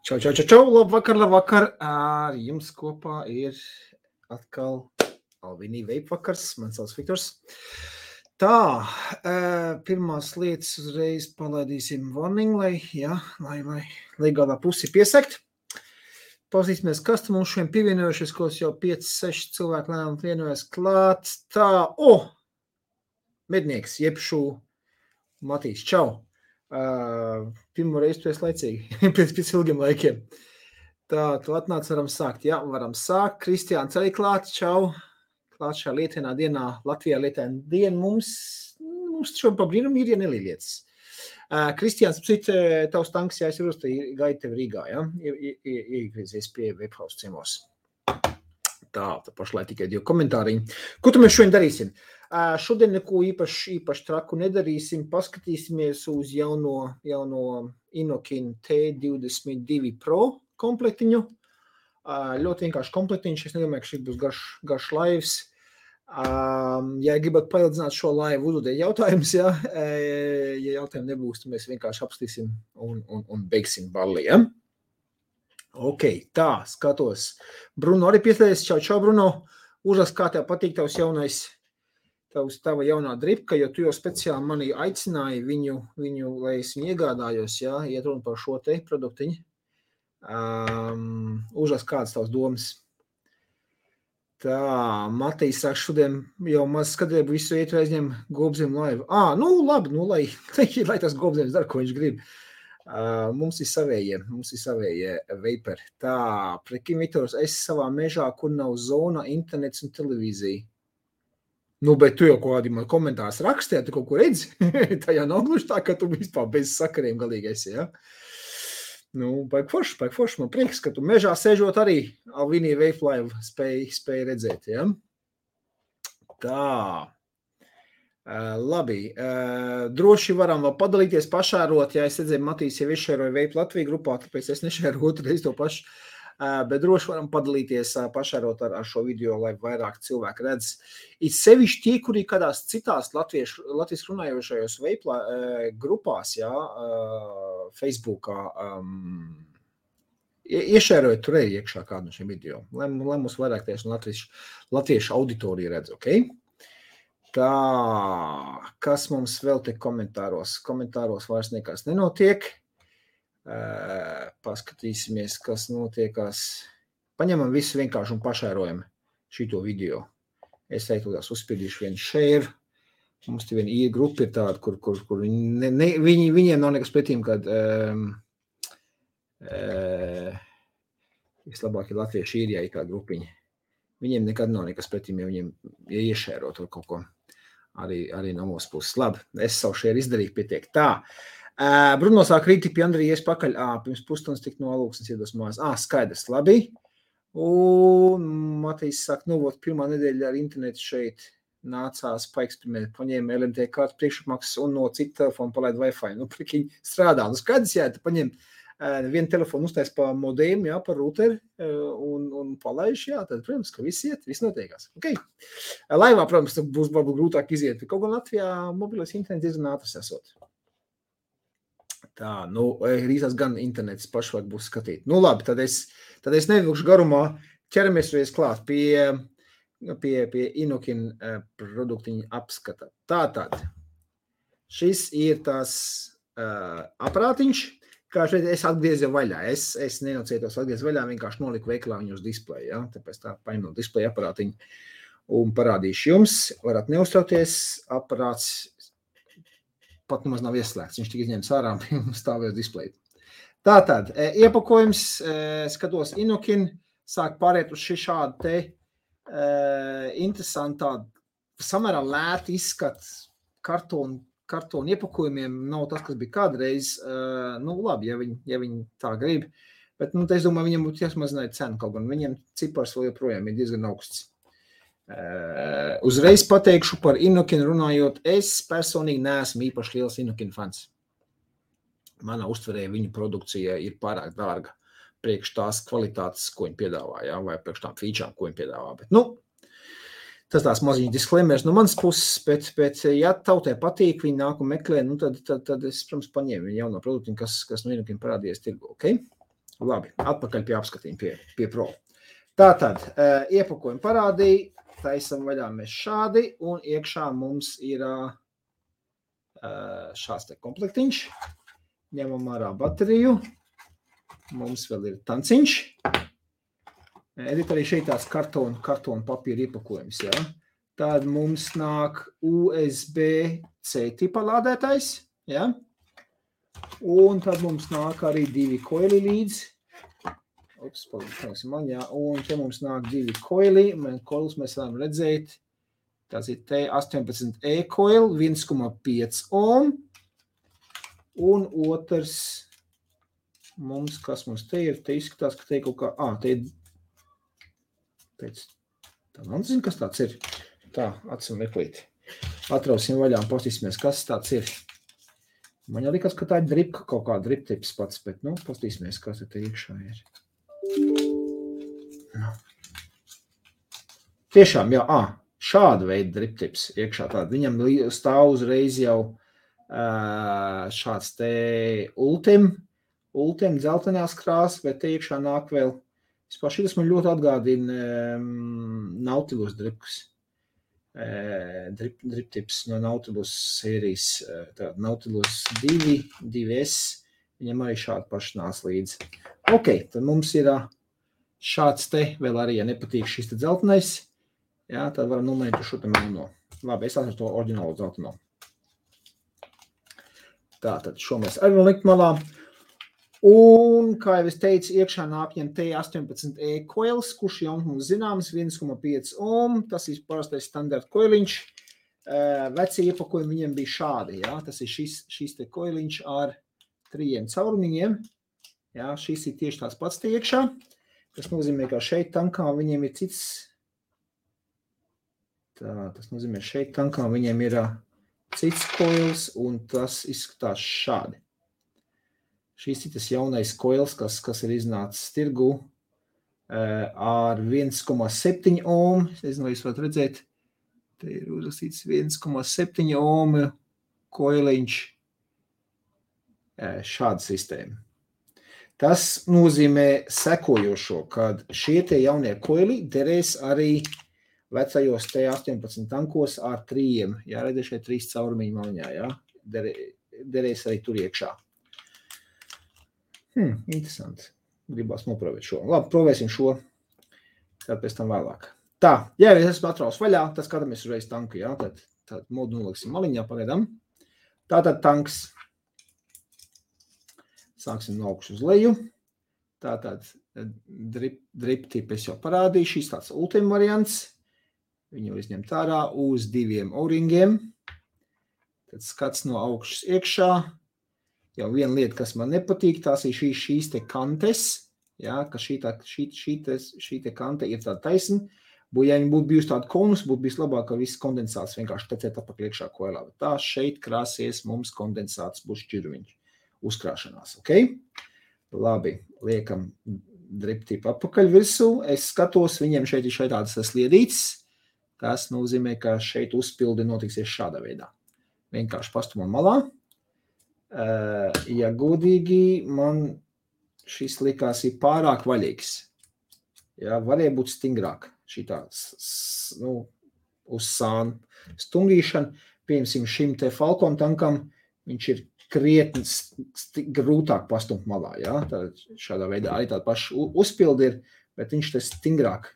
Čau, labvakar. Ar jums kopā ir atkal Alvinī veipvakars. Man sauc Viktors. Tā, pirmās lietas uzreiz palaidīsim warning, lai galā pusi piesekt. Pazīsimies, kas tu mums šodien pievienojušies, ko jau 5-6 cilvēki lēmumi vienojas klāt. Tā, mednieks, jebšu Matīs, čau. Pirmo reizi tu esi laicīgi, pēc ilgiem laikiem. Tā, tu atnāc, varam sākt. Jā, varam sākt. Kristiāns arī klāt, čau. Klāt šā lietainā dienā, Latvijā lietaina diena mums šodien pa brīnumu ir, ja nelīlietas. Kristiāns, tavs tanks jāizsarūs, tā gaida tevi Rīgā, ja? Iegriezies pie Webhouse ciemos. Tā pašlai tikai 2 komentāriņi. Ko tu mēs šodien darīsim? Šodien neko īpaši traku nedarīsim, paskatīsimies uz jauno Inokin T22 Pro komplektiņu. Ļoti vienkārši komplektiņš, es nedomāju, ka šis būs garš laivs. Ja gribat paildzināt šo laivu, uzdodiet jautājumus, ja jautājumu nebūs, tad mēs vienkārši apstīsim un beigsim balli, ja? Ok, tā, skatos. Bruno arī pieslēdzies, čau, Bruno. Uzrakst, kā tev patīk tavs tava jaunā dripka, jo tu jau speciāli mani aicināji viņu, lai es viņu iegādājos, ja, iet runa par šo te produktiņu. Uzrakst, kādas tavs domas. Tā, Matīs saka, šodien jau maz skatību visu iet aizņem Gobzem laivu. Labi, lai tas Gobzems dara, ko viņš grib. Mums ir savējie veiperi. Tā, prekim Viktors, es savā mežā, kur nav zona, internets un televīzija. Bet tu jau kādi man komentārs rakstē, tu kaut ko redzi? Tā jau nav gluži tā, ka tu vispār bez sakariem galīgi esi, ja? Baigi forši, man prieks, ka tu mežā sēžot arī Alvinī veiplaivu spēj redzēt, ja? Tā, labi, droši varam vēl padalīties, pašērot, ja es redzēju, Matīs jau izšēroja veipu Latviju grupā, tāpēc es nešēroju otru reizi to pašu. Bet droši varam padalīties pašērot ar šo video, lai vairāk cilvēki redz. Ir sevišķi tie, kuri kādās citās Latvijas runājošajos veiplā grupās, jā, Facebookā, iešērojot tur arī iekšā kādu no šiem video, lai mums vairāk tieši latviešu auditorija redz, ok? Tā, kas mums vēl te komentāros? Komentāros vairs nekas nenotiek. Paskatīsimies, kas notiekās. Paņemam visu vienkārši un pašērojam šito video. Es teiktu, tās uzspiedīšu vienu share. Mums te viena grupa ir tāda, kur viņiem nav nekas pretīm, kad vislabāk ir latvieši īrijā ir kā grupiņa. Viņiem nekad nav nekas pretīm, ja viņiem iešēro tur kaut ko. Arī no mūsu puses. Labi, es savu share izdarīju, pietiek. Tā. Bruno sāk rīti pie Andrijas pakaļ, pirms pusstundas tik no alūksnes iedos mājās. Skaidrs, labi. Un Matīs saka, pirmā nedēļa ar internetu šeit nācās paeksperimentēt, paņēma LMT kārtu priekšapmaksas un no citu telefonu palaid Wi-Fi. Prikiņ strādā. Skaidrs, jā, paņem vienu telefonu uztais pa modēmu, jā, pa routeri un palaiž, jā, tad, protams, ka viss iet, viss notiekās. Okay. Laivā, protams, būs varbūt grūtāk iziet, kaut gan Latvijā mobilais internets diezgan ātrs esot. Tā, rīzās gan internets pašvāk būs skatīt. Labi, tad es nevilkšu garumā, ķeramies reiz klāt pie Inokin produktiņa apskata. Tātad, šis ir tās aparātiņš, kā šeit es atgriezu vaļā. Es nenocietos atgriezu vaļā, vienkārši noliku veikalā viņu uz displeju, ja? Tāpēc tā paņemu displeju aparātiņu un parādīšu jums. Varat neuztrauties, aparāts pat nemaz nav ieslēgts. Viņš tik izņemts ārā un stāvēs displeju. Tātad, iepakojums, skatos Inokin, sāk pāriet uz šādu te interesantu tādu samērā lētu izskatu kartonu iepakojumiem. Nav tas, kas bija kādreiz. Labi, ja viņi tā grib. Bet, es domāju, viņam būtu jāsmazināt cenu kaut gan. Viņiem cipars vēl joprojām ir diezgan augsts. Uzreiz pateikšu par Inokin runājot, es personīgi neesmu īpaši liels Inokin fans. Manā uztverē viņu produkcija ir pārāk dārga priekš tās kvalitātes, ko viņi piedāvā, jā, vai priekš tām featurām, ko viņi piedāvā. Bet, tas tās maziņi disclaimers no manas puses, bet ja tautai patīk, viņi nāk un meklē, tad es, protams, paņēmu viņu jauno produktiņu, kas no Inokin parādījies tirgu, ok? Labi, atpakaļ pie apskatījuma, pie pro. Tātad, iepakojumu parādīja, taisam vaļā mēs šādi, un iekšā mums ir šāds te komplektiņš. Ņemam ārā bateriju. Mums vēl ir tanciņš. Edit arī šeit tās kartona papīra iepakojums, jā. Tad mums nāk USB-C tipa lādētājs, jā. Un tad mums nāk arī 2 koili līdz. Un te mums nāk 2 koili. Koilus mēs varam redzēt. Tas ir T18E koil, 1,5 ohm. Un otrs mums, kas mums te ir, te izskatās, ka te kaut kā, te ir pēc, tā man zina, kas tāds ir. Tā, atsim meklīt. Atrausim vaļā un pastīsimies, kas tāds ir. Man jau likās, ka tā ir dripka, kaut kā driptips pats, bet, pastīsimies, kas te iekšā ir. Tiešām, jā, šāda veida driptips iekšā tāda. Viņam stāv uzreiz jau šāds te ultim dzeltenās krāsas, bet te iekšā nāk vēl. Vispār šitas man ļoti atgādina Nautilus dripkus. Driptips no Nautilus sērijas. Tātad Nautilus 2, 2S. Viņam arī šādi paši nāc līdzi. Ok, tad mums ir šāds te, vēl arī, ja nepatīk šis te dzeltenais, jā, tad varam nomainīt šo te melno. Labi, es atveru to oriģinālu dzelteno. Tātad šo mēs arī vēl likt malā. Un, kā jau es teicu, iekšā nāk viņam T18E koils, kurš jau mums zināms 1,5 ohm. Tas ir parastais standarta koiliņš. Vecie iepakojumi viņam bija šādi, jā. Tas ir šis te koiliņš ar 3 caurumiņiem. Jā, šis ir tieši tās pats te iekšā. Tas nozīmē, ka šeit tankā viņiem ir cits. Tā, tas nozīmē, šeit tankā viņiem ir cits koils, un tas izskatās šādi. Šis ir tas jaunais koils, kas ir iznācis tirgu ar 1,7 ohm. Es nezinu, vai jūs varat redzēt. Te ir uzrakstīts 1,7 ohm koiliņš. Šāda sistēma. Tas nozīmē sekojošo, kad šie tie jaunie koili derēs arī vecajos T18 tankos ar 3. Jā, redzēt šeit 3 caurumiņu maliņā, jā. Derēs arī tur iekšā. Interesanti. Gribās noprovēt šo. Labi, provēsim šo. Tad pēc tam vēlāk. Tā, ja es esmu atraus vaļā, tad skatāmies uzreiz tanku, jā. Tad modu noliksim maliņā pagaidām. Tātad tanks. Sāksim no augšas uz leju. Tātad drip tipu es jau parādīju. Šis tāds ultima variants. Viņu izņemt ārā uz 2 O-ringiem. Tad skats no augšas iekšā. Jau viena lieta, kas man nepatīk, tās ir šīs te kantes, jā, ka šī te kante ir tāda taisna. Ja viņi būtu bijusi tāda konus, būtu bijis labāk, ka viss kondensāts vienkārši tecēt apakaļ iekšā koilā. Bet tā šeit krāsies mums kondensāts būs šķirviņš uzkrāšanās, ok? Labi, liekam drip tipu apakaļ virsū. Es skatos, viņiem šeit ir tādas sliedītes. Tas nozīmē, ka šeit uzpildi notiksies šādā veidā. Vienkārši pastumam malā. Ja godīgi, man šis likās ir pārāk vaļīgs. Jā, varēja būt stingrāk šitā, uz sānu stungīšana. Piemēram, šim te Falcon tankam viņš ir krietni grūtāk pastumt malā, jā. Tad šādā veidā arī tāda paša uzpildi ir, bet viņš te stingrāk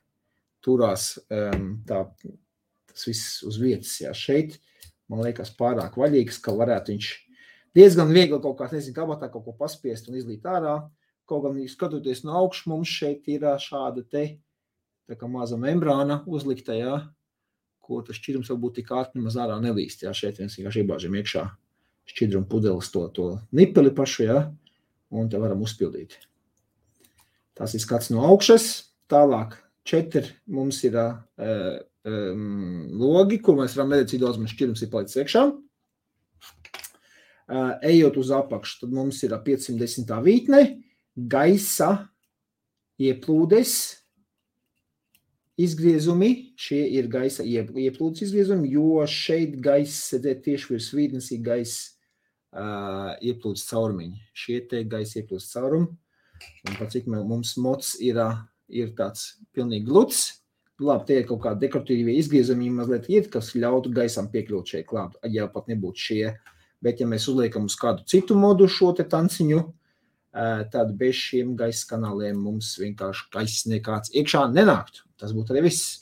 turās tas viss uz vietas, jā. Šeit, man liekas, pārāk vaļīgs, ka varētu viņš diezgan viegli kaut kā, nezinu, kabatā kaut ko paspiest un izlīt ārā. Kaut gan, skatoties no augšas, mums šeit ir šāda te, tā kā maza membrāna uzlikta, jā, ko tas šķidrums varbūt tik ātri nemaz ārā nelīst, jā. Šeit viens vienkārši iebāžam iekšā šķidrumu pudeles to nipeli pašu, jā, un te varam uzpildīt. Tas ir skats no augšas. Tālāk 4 mums ir logi, kur mēs varam redzēt, cik daudz mums šķidrums ir palicis iekšā. Ejot uz apakšu, tad mums ir 510. vītne, gaisa ieplūdes izgriezumi. Šie ir gaisa ieplūdes izgriezumi, jo šeit gaisa, tieši virs vītnes ir gaisa ieplūdes caurumiņi. Šie te gaisa ieplūdes caurumi. Un par cik mums mots ir tāds pilnīgi gluds. Labi, tie ir kaut kādi dekoratīvie izgriezumi mazliet ir, kas ļautu gaisam piekļūt šeit klāt, ja pat nebūtu šie. Bet ja mēs uzliekam uz kādu citu modu šo te tanciņu, tad bez šiem gaisa kanāliem mums vienkārši gaiss nekāds iekšā nenāktu. Tas būtu arī viss.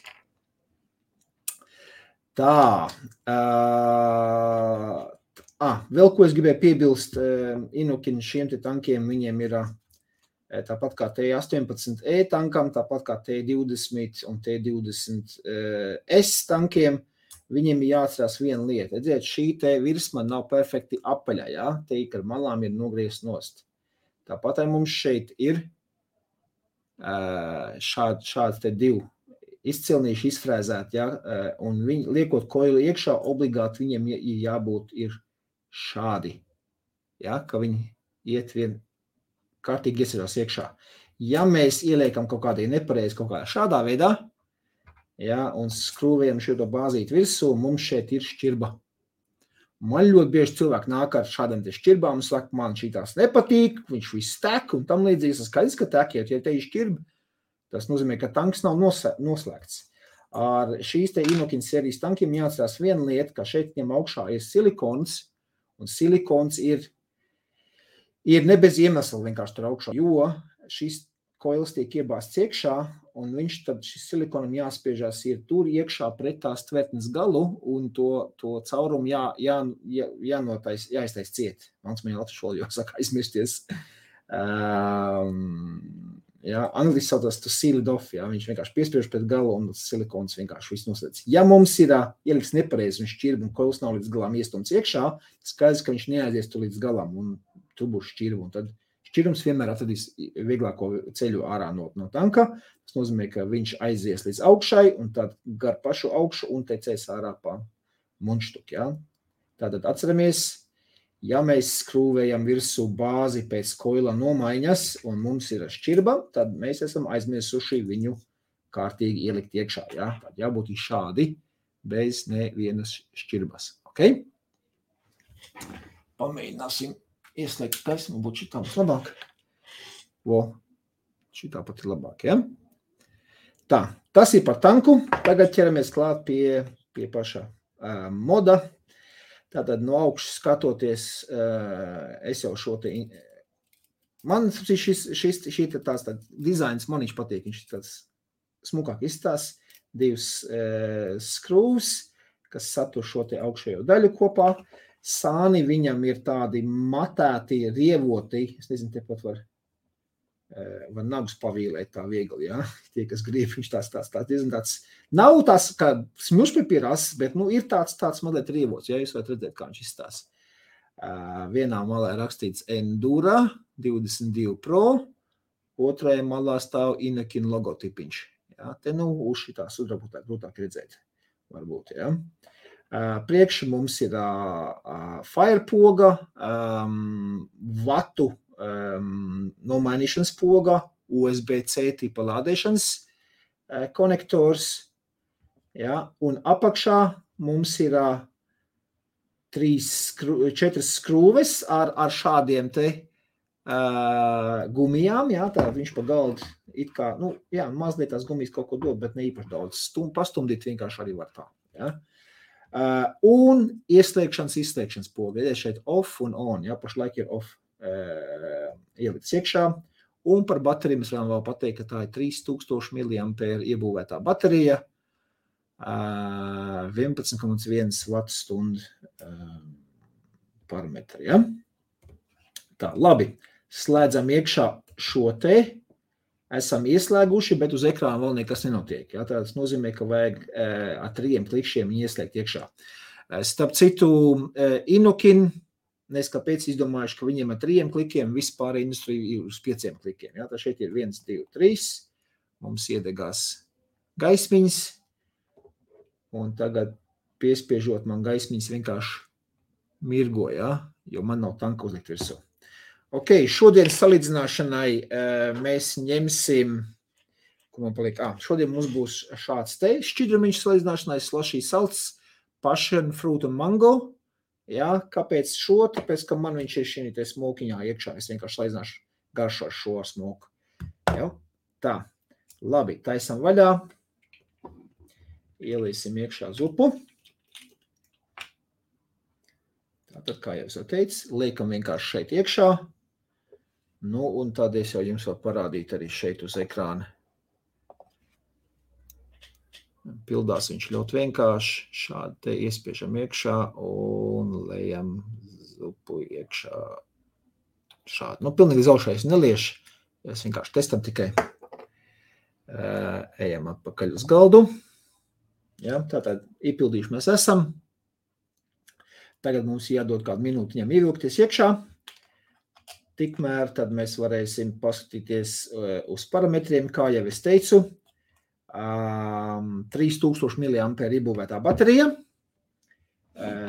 Tā. Vēl ko es gribēju piebilst, Inukin šiem te tankiem, viņiem ir tāpat kā T-18E tankam, tāpat kā T-20 un T-20S tankiem, viņiem ir jāatcerās viena lieta. Redziet, šī te virsma nav perfekti apaļā, jā? Te ar malām ir nogriezt nost. Tāpat arī mums šeit ir šāds te divi izcilnīši izfrēzēti, jā? Un viņi, liekot koilu iekšā, obligāti viņiem ir jābūt ir šādi, jā? Ka viņi iet vien kārtīgi iesirās iekšā. Ja mēs ieliekam kaut kādī nepareizi kaut kādā šādā veidā, ja, un skrūvējam šo bāzīti virsū, mums šeit ir šķirba. Man ļoti bieži cilvēki nāk ar šādām te šķirbām un saka, man šitās nepatīk, viņš viss tek un tam līdzīgs, tas skaidrs, ka tekiet, ja te ir šķirba, tas nozīmē, ka tanks nav noslēgts. Ar šīs te Inukin sērijas tankiem jāatcerās viena lieta, ka šeit viņam augšā ir silikons, un silikons ir ne bez iemesla vienkārši tur augšā, jo šis koils tiek iebāzts iekšā, un viņš tad šis silikonam jāspiežās ir tur iekšā pret tās tvertnes galu, un to caurumu jāiztais ciet. Mans man latviešu valodā saka aizmirsties. Angliski saucās to sealed off, jā, viņš vienkārši piespiež pret galu, un silikons vienkārši viss noslēdz. Ja mums ir ieliks nepareizi un šķirba, un koils nav līdz galām iestumts iekšā, skaidrs, ka viņš neaizies tur līdz galam, un tur būs šķirba, un tad šķirums vienmēr atradīs vieglāko ceļu ārā no tanka. Tas nozīmē, ka viņš aizies līdz augšai, un tad gar pašu augšu un tecēs ārā pa munštuku, jā. Tātad atceramies, ja mēs skrūvējam virsū bāzi pēc koila nomaiņas, un mums ir šķirba, tad mēs esam aizmirsuši viņu kārtīgi ielikt iekšā, jā. Tad jābūt šādi, bez nevienas šķirbas, ok? Pamēģināsim ieslēgt gaismu, būtu šitā būs labāk. Šitā pat ir labāk, ja? Tā, tas ir par tanku. Tagad ķeramies klāt pie paša moda. Tātad no augšas skatoties, es jau šo te... Man šī tās dizains man viņš patīk, viņš tāds smukāk izstās. Divas skrūvs, kas satur šo te augšējo daļu kopā. Sāni viņam ir tādi matēti, rievoti, es nezinu, tepat var nagus pavīlēt tā viegli, jā, tie, kas grib, viņš tāds, nav tās kā smušpapīras, bet, ir tāds mazliet rievots, jā, jūs varat redzēt, kā viņš izstās. Vienā malā rakstīts Endura 22 Pro, otrajā malā stāv Inukin logotipiņš, jā, te, uz šitās grūtāk redzēt, varbūt, jā. Priekši mums ir fire poga, vatu nomainīšanas poga, USB-C tipa lādēšanas konektors, ja, un apakšā mums ir 4 skrūves ar šādiem te gumijām, jā, tā viņš pa galdu it kā, mazliet tās gumijas kaut ko dod, bet ne īpaši daudz, pastumdīt vienkārši arī var tā, jā. Un ieslēgšanas poga, ja šeit off un on, ja, pašlaik ir off ielikts iekšā, un par bateriju mēs varam vēl pateikt, ka tā ir 3000 mAh iebūvētā baterija, 11,1 Wh parametri, ja. Tā, labi, slēdzam iekšā šo te, esam ieslēguši, bet uz ekrāna vēl nekas nenotiek. Ja? Tas nozīmē, ka vajag ar 3 klikšiem ieslēgt iekšā. Starp citu, Inukin, kāpēc izdomājuši, ka viņiem ar 3 klikiem vispār industrija ir uz 5 klikiem. Ja? Tā šeit ir 1, 2, 3, mums iedegās gaismiņas, un tagad piespiežot man gaismiņas vienkārši mirgo, ja? Jo man nav tanka uzlikt virsū. Ok, šodien salīdzināšanai mēs ņemsim, ko man paliek, šodien mums būs šāds te šķidrumiņš salīdzināšanai, slushy salts, passion fruit un mango, jā, kāpēc šo, tāpēc, ka man viņš ir šī te smokiņā iekšā, es vienkārši salīdzināšu garšo šo smoku. Ja? Tā, labi, taisam vaļā. Ielīsim iekšā zupu. Tātad, kā jau teicu, liekam vienkārši šeit iekšā. Nu, un tad es jau jums varu parādīt arī šeit uz ekrāna. Pildās viņš ļoti vienkārši. Šādi te iespiežam iekšā un lejam zupu iekšā. Šādi. Nu, pilnīgi zaušais nelieši. Es vienkārši testam tikai. Ejam atpakaļ uz galdu. Ja, tātad iepildījuši mēs esam. Tagad mums jādod kādu minūti viņam ievilkties iekšā. Tikmēr tad mēs varēsim paskatīties uz parametriem, kā jau es teicu. 3000 mAh iebūvētā baterija.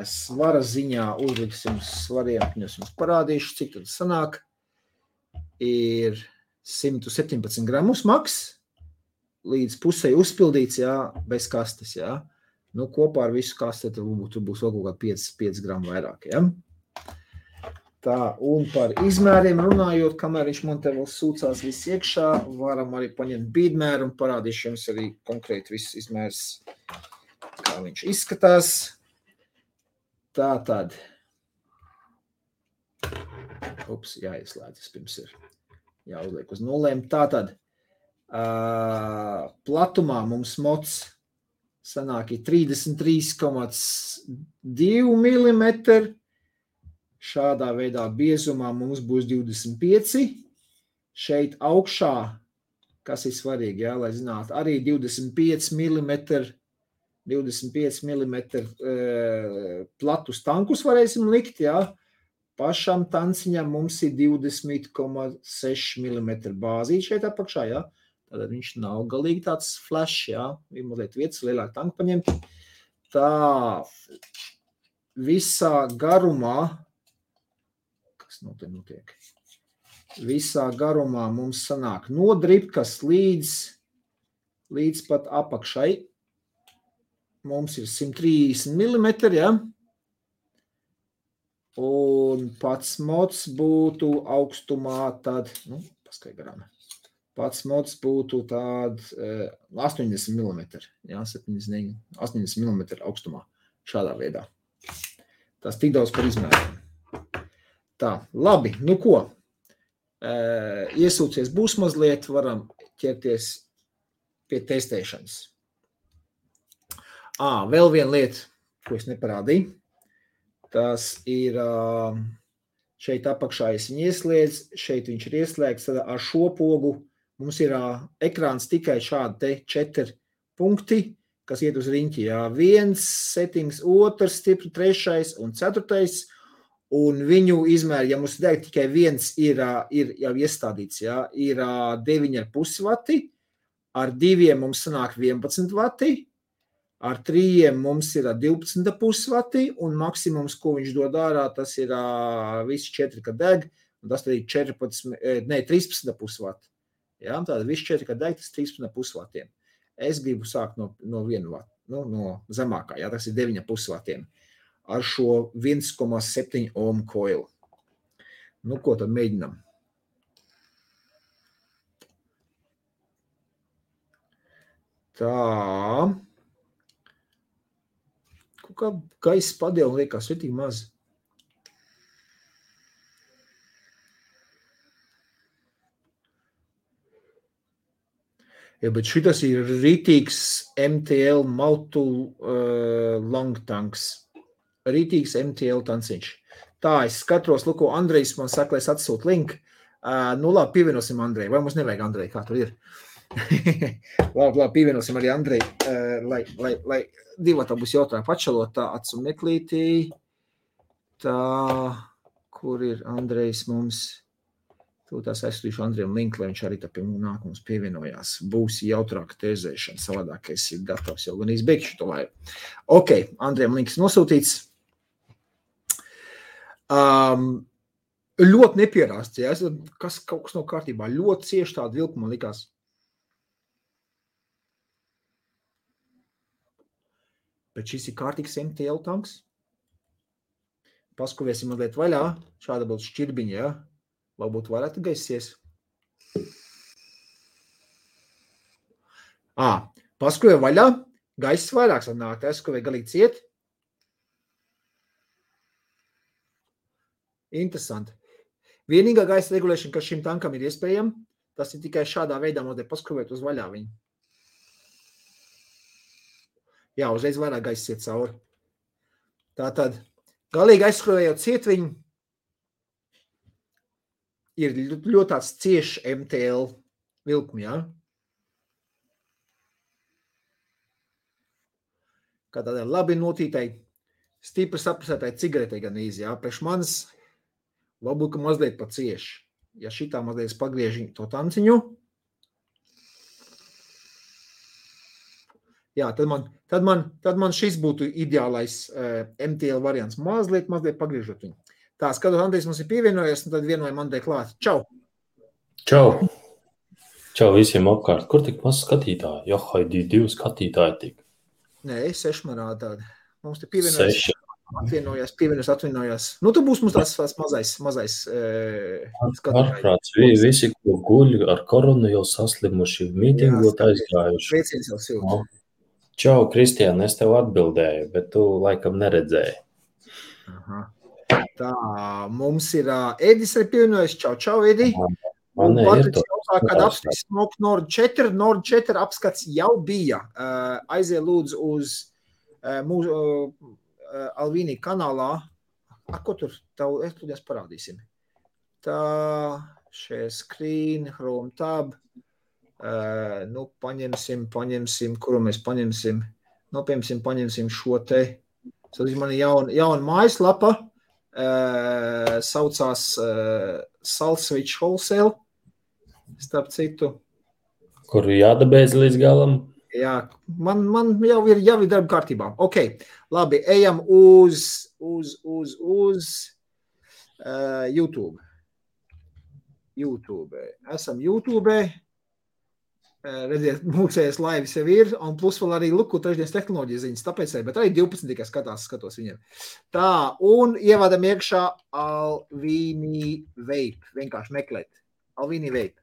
Svara ziņā uzliksim svariem, es jums parādīšu, cik tad sanāk. Ir 117 gramus maks, līdz pusei uzpildīts, jā, bez kastes, jā. Nu, kopā ar visu kasti tur būs vēl kaut kā 5 gramu vairāk, jā. Tā, un par izmēriem runājot, kamēr viņš man te vēl sūcās viss iekšā, varam arī paņemt bīdmēru un parādīšu jums arī konkrēti viss izmērs, kā viņš izskatās. Tātad, jāieslēdzas pirms ir jāuzliek uz nulēm. Tātad, platumā mums mots sanāk 33,2 mm. Šādā veidā biezumā mums būs 25. Šeit augšā, kas ir svarīgi, jā, lai zinātu, arī 25 mm platus tankus varēsim likt, jā. Pašam tanciņam mums ir 20,6 mm bāzīt šeit apakšā, jā. Tātad viņš nav galīgi tāds flash, jā. Ir mazliet vietas lielāk tanku paņemt. Tā, visā garumā, kas notiek? Visā garumā mums sanāk no dribkas līdz pat apakšai. Mums ir 130 mm, ja? Un pats mods būtu augstumā tad, paskai garām. Pats mods būtu tād 80 mm, ja? 80 mm augstumā, šādā veidā. Tas tik daudz par izmēriem. Tā, labi, nu ko, iesūcies būs mazliet, varam ķerties pie testēšanas. Vēl viena lieta, ko es neparādīju, tas ir šeit apakšā es viņu ieslēdzu, šeit viņš ir ieslēgts, tad ar šo pogu mums ir ekrāns tikai šādi te 4 punkti, kas iet uz riņķi, jā, 1 settings, 2 stipri, 3 un 4. Un viņu izmēri, ja mums tikai viens ir jau iestādīts, jā, ir 9,5 vati, ar 2 mums sanāk 11 vati, ar 3 mums ir 12,5 vati, un maksimums, ko viņš dod ārā, tas ir visi 4, kad deg, un tas arī 13,5 vati. Jā, tātad visi 4, kad deg, tas 13,5 vatiem. Es gribu sākt no 1 vati, no zemākā, jā, tas ir 9,5 vatiem. Ar šo 1,7 ohm koilu. Nu, ko tad mēģinam? Tā. Kā gaisa padēla liekas svetīgi maz. Ja, bet šitas ir rītīgs MTL long tanks. Rītīgs MTL tanciņš. Tā, es skatos, ko Andrejs man saka, lai es atsūtu linku. Nu, labi, pievienosim Andreju. Vai mums nevajag Andreju, kā tur ir? labi, pievienosim arī Andreju, lai divatā būs jautājumi pačalot. Tā, atsu meklītī. Tā, kur ir Andrejs mums? Tūtās aizsūtīšu Andrejam linku, lai viņš arī tā pie nākums pievienojās. Būs jautrāka tēzēšana, savādāk es ir gatavs jau gan izbeigšu to laivu. Ok, Andrejam links nosūtīts. Ļoti nepierāsts, ja? Kaut kas nav kārtībā, ļoti cieši tāda vilka man likās. Bet šis ir kārtīgs MTL tanks. Paskuvēsim mazliet vaļā, šāda būtu šķirbiņa, ja? Varbūt varētu gaisies. Paskruvēja vaļā, gaiss vairāk sanāk, skrūvēja galīgi ciet. Interesanti. Vienīgā gaisa regulēšana, kas šim tankam ir iespējama, tas ir tikai šādā veidā mazliet paskrūvēt uz vaļā viņu. Jā, uzreiz vairāk gaisa iet cauri. Tātad, galīgi aizskrūvējot ciet viņu, ir ļoti tāds ciešs MTL vilkumi, jā? Kā tādā labi notītai, stipri saprasētai cigaretei gan īzi, jā? Priekš manis varbūt, ka mazliet pa cieši. Ja šitā mazliet pagriež to tanciņu, jā, tad man šis būtu ideālais MTL variants. Mazliet pagriežot viņu. Tā, skatot, Andrijs mums ir pievienojies, un tad vienojam Andrei klāt. Čau! Čau! Čau visiem apkārt. Kur tik maz skatītāji? Johaidī, 2 skatītāji tik. Nē, 6 man rāda tādi. Mums te pievienojas. Atvienojās. Nu, tu būs mums tās mazais skatītāji. Ārprāts, visi, ko guļ ar koronu, jau saslimuši, mītingot aizgājuši. Sveiciens jau silti. Čau, Kristiān, es tev atbildēju, bet tu laikam neredzēji. Aha. Tā, mums ir Edis arī pievienojas. Čau, Edi. Man ir to. Kad apskats Nord 4 apskats jau bija. Aizie lūdzu uz mūsu Alvīnī kanālā. Ko tur? Es parādīsim. Tā, šie screen, Chrome tab. Nu, paņemsim, kuru mēs paņemsim. Nu, paņemsim šo te. Man ir jauna mājaslapa. Saucās Salswitch Wholesale. Starp citu. Kuru jādabēdz līdz galam? Jā, man jau ir darba kārtībā. Ok, labi, ejam uz YouTube. Esam YouTube. Redziet, mūksējas laivis jau ir, un plus vēl arī luku trešdienas tehnoloģijas ziņas, tāpēc arī, bet arī 12 tikai skatos viņiem. Tā, un ievadam iekšā Alvīnī Vape, vienkārši meklēt. Alvīnī Vape.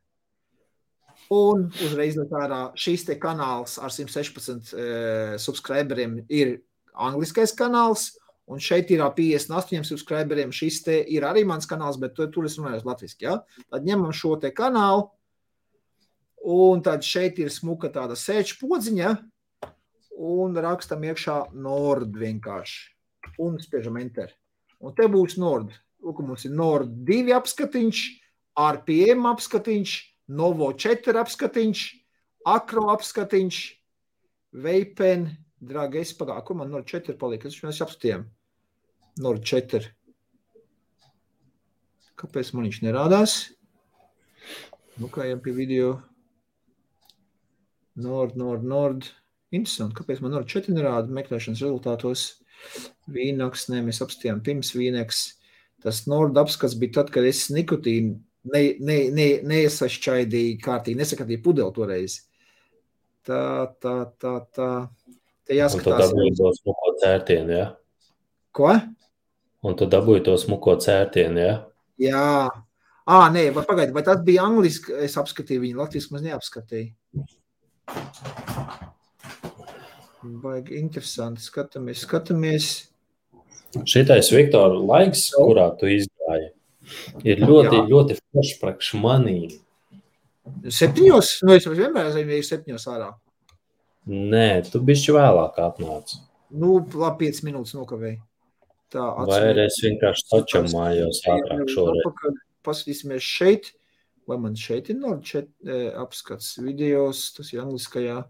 Un uzreiz ārā šīs te kanāls ar 116 subscriberiem ir angliskais kanāls, un šeit ir 58 subscriberiem. Šis te ir arī mans kanāls, bet tur es runāju latviski, ja? Tad ņemam šo te kanālu, un tad šeit ir smuka tāda sēču podziņa, un rakstam iekšā Nord vienkārši, un spiežam Enter. Un te būs Nord. Lūk, mums ir Nord 2 apskatiņš, RPM apskatiņš, Novo 4 apskatiņš, Akro apskatiņš, Veipen, dragi, es pagāju, kur man Nord 4 palika? Mēs apskatījām. Nord 4. Kāpēc man viņš nerādās? Nu, kā jau pie video. Nord. Interesanti, kāpēc man Nord 4 nerāda meklēšanas rezultātos? Vīnoks, mēs apskatījām pirms Vīneks. Tas Nord apskats bija tad, kad es nikotīnu neiesašķaidīju kārtīgi, nesakatīju pudeli toreiz. Tā. Te jāskatās. Un tu dabūji to smuko cērtienu, ja? Ko? Un tu dabūji to smuko cērtienu, ja? Jā. Nē, pagaidi, vai tas bija angliski? Es apskatīju viņu, latviski maz neapskatīju. Baigi interesanti, skatāmies. Šitais, Viktor, laiks, kurā tu izgāji, ir ļoti forši priekš manī. 7? Nu, es vienmēr ir 7 ārā. Nē, tu bišķi vēlāk atnāc. Nu, labi, 5 minūtes nokavēji. Tā, vai arī es vienkārši sačamājos ātrāk šoreiz. Paskatīsimies šeit. Vai man šeit ir Nord 4 apskats videos, tas ir angliskajā.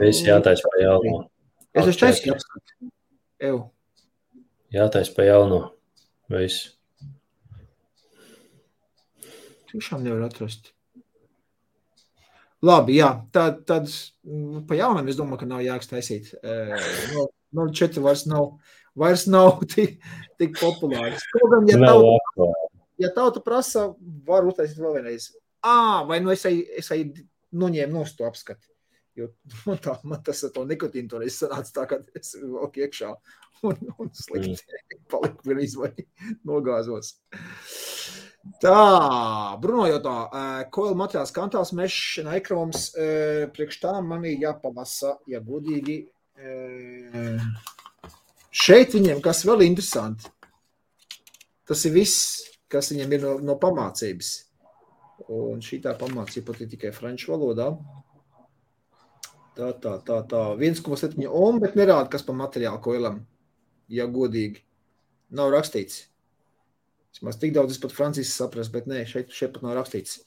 Es jātais pa jauno. Es esmu taisīju apskatu. Jātais pa jauno. Viss. Tiešām nevar atrast. Labi, jā. Tad pa jaunam es domāju, ka nav jāks taisīt. Nord 4 vairs nav tik populārs. Kaut gan, ja tauta prasa, var uztaisīt vēl vienreiz. Vai nu es noņēmu nost to apskati. Jo man tas ar to nikotīnu toreiz sanāca tā, ka es valku iekšā un slikti paliku vienreiz vai nogāzos. Tā, Bruno jautā, koila materiāls kantāls mešs un ekroms, priekš tā man ir jāpamasa, ja godīgi. Šeit viņiem, kas vēl interesanti, tas ir viss, kas viņiem ir no pamācības. Un šī tā pamācība pat ir tikai franču valodā. Tā. 1,7 ohm, bet nerāda, kas pa materiālu koilam, ja godīgi. Nav rakstīts. Vismaz tik daudz es pat francijas saprast, bet nē, šeit pat nav rakstīts,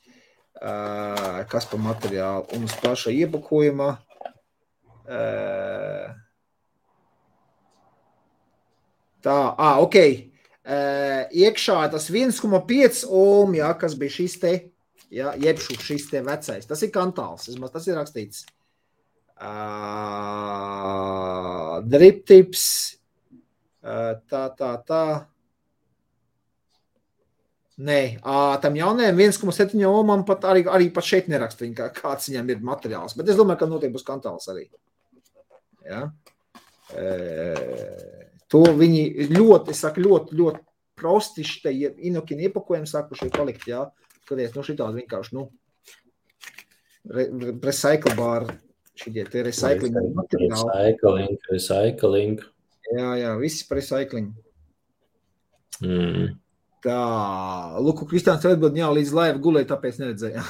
kas pa materiālu. Un uz paša iepakojumā. Tā, ok. Iekšā tas 1,5 ohm, jā, kas bija šis te, jā, jebšu šis te vecais. Tas ir kantāls, vismaz tas ir rakstīts. Drip tips. Tā. Nē, tam jaunajam 1,7 ohmam pat arī pat šeit nerakst viņa, kāds viņam ir materiāls. Bet es domāju, ka noteikti būs kantāls arī. Ja? To viņi ļoti prosti šitai inokini iepakojumi sākuši palikt, jā. Skaties, šitādi vienkārši, recycle bar, šitie te recycling materiāli. Recycling. Jā, visi par recycling. Tā, Luku, Kristiāns atbild, jā, līdz laiva gulēja, tāpēc neredzēja.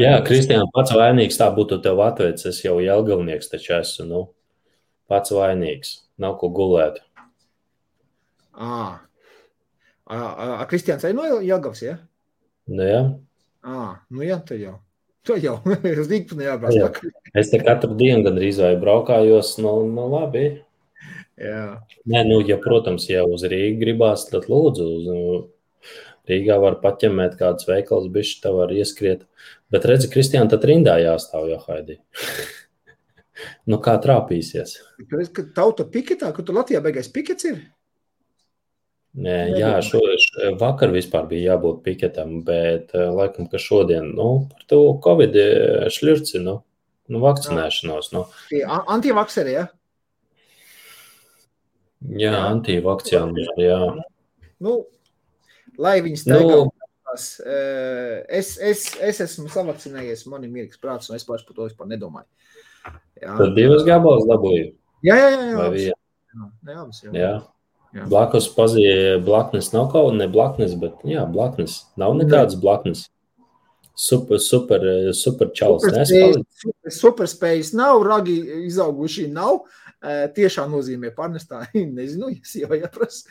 Jā, Kristiāns pats vainīgs, tā būtu tev atveic, es jau Jelgavnieks taču esmu, pats vainīgs, nav ko gulēt. Kristiāns arī no Jelgavs, ja? Nu jā. Nu jā, to jau. Es dīk nejābrās. Es te katru dienu gandrīz vai braukājos, labi. Jā. Nē, ja, protams, ja uz Rīgu gribās, tad lūdzu, Rīgā var paķemēt kādas veikals, bišķi tā var ieskriet. Bet redzi, Kristiāna, tad rindā jāstāv, jo Haidī. Kā trāpīsies? Tauta piketā, ka tu Latvijā beigais pikets ir? Nē, jā, vakar vispār bija jābūt piketam, bet laikam, ka šodien, par to Covid šļurci, vakcinēšanos. Antivakseri, ja? Jā, antivakciāni, jā. Lai viņi staigās. Es esmu savakcinējies, man ir mierīgs prāts, un es par to vispār nedomāju. Jā. Tad 2 gabalas dabūju? Jā. Jā. Blakus pazīja blaknes, nav kaut ne blaknes, bet jā, blaknes. Nav nekādas blaknes. Super čalis. Superspējas nav, ragi izauguši nav. Tiešā nozīmē pārnestā, nezinu, ja sieva jāprasa.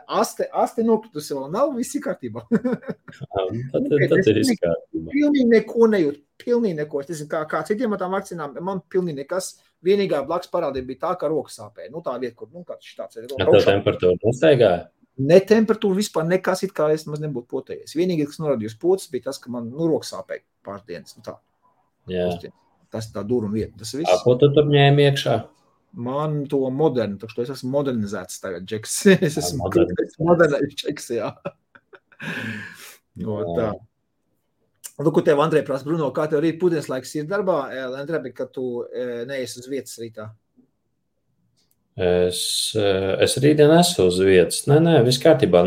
Aste nokritusi vēl nav, viss ir kārtībā. Tad ir viss kārtībā. Pilnīgi neko nejūt, pilnīgi neko. Es nezinu, kā citiem ar tām vakcinām, man pilnīgi nekas. Vienīgā blakus parādība bija tā, ka rokas sāpēja. Tā vieta, kur, kāds tāds ir. Tā temperatūra nestaigāja? Ne temperatūra vispār nekas, it kā es maz nebūtu potējies. Vienīgais, kas norādījus pocis, bija tas, ka man rokas sāpēja pāris dienas. Tā. Jā. Tas tā dūruma vieta. Tas viss. Ko tu tur ņēmi iekšā? Man to modernu, tā es esmu modernizēts tagad, Džeks. Es esmu modernais Džeks, jā. Tā. Lūk, tev, Andrej, prasa, Bruno, kā tev rīt pūdienas laiks ir darbā, Andrej, ka tu neesi uz vietas rītā? Es rītdien esmu uz vietas. Nē, viss kārtībā.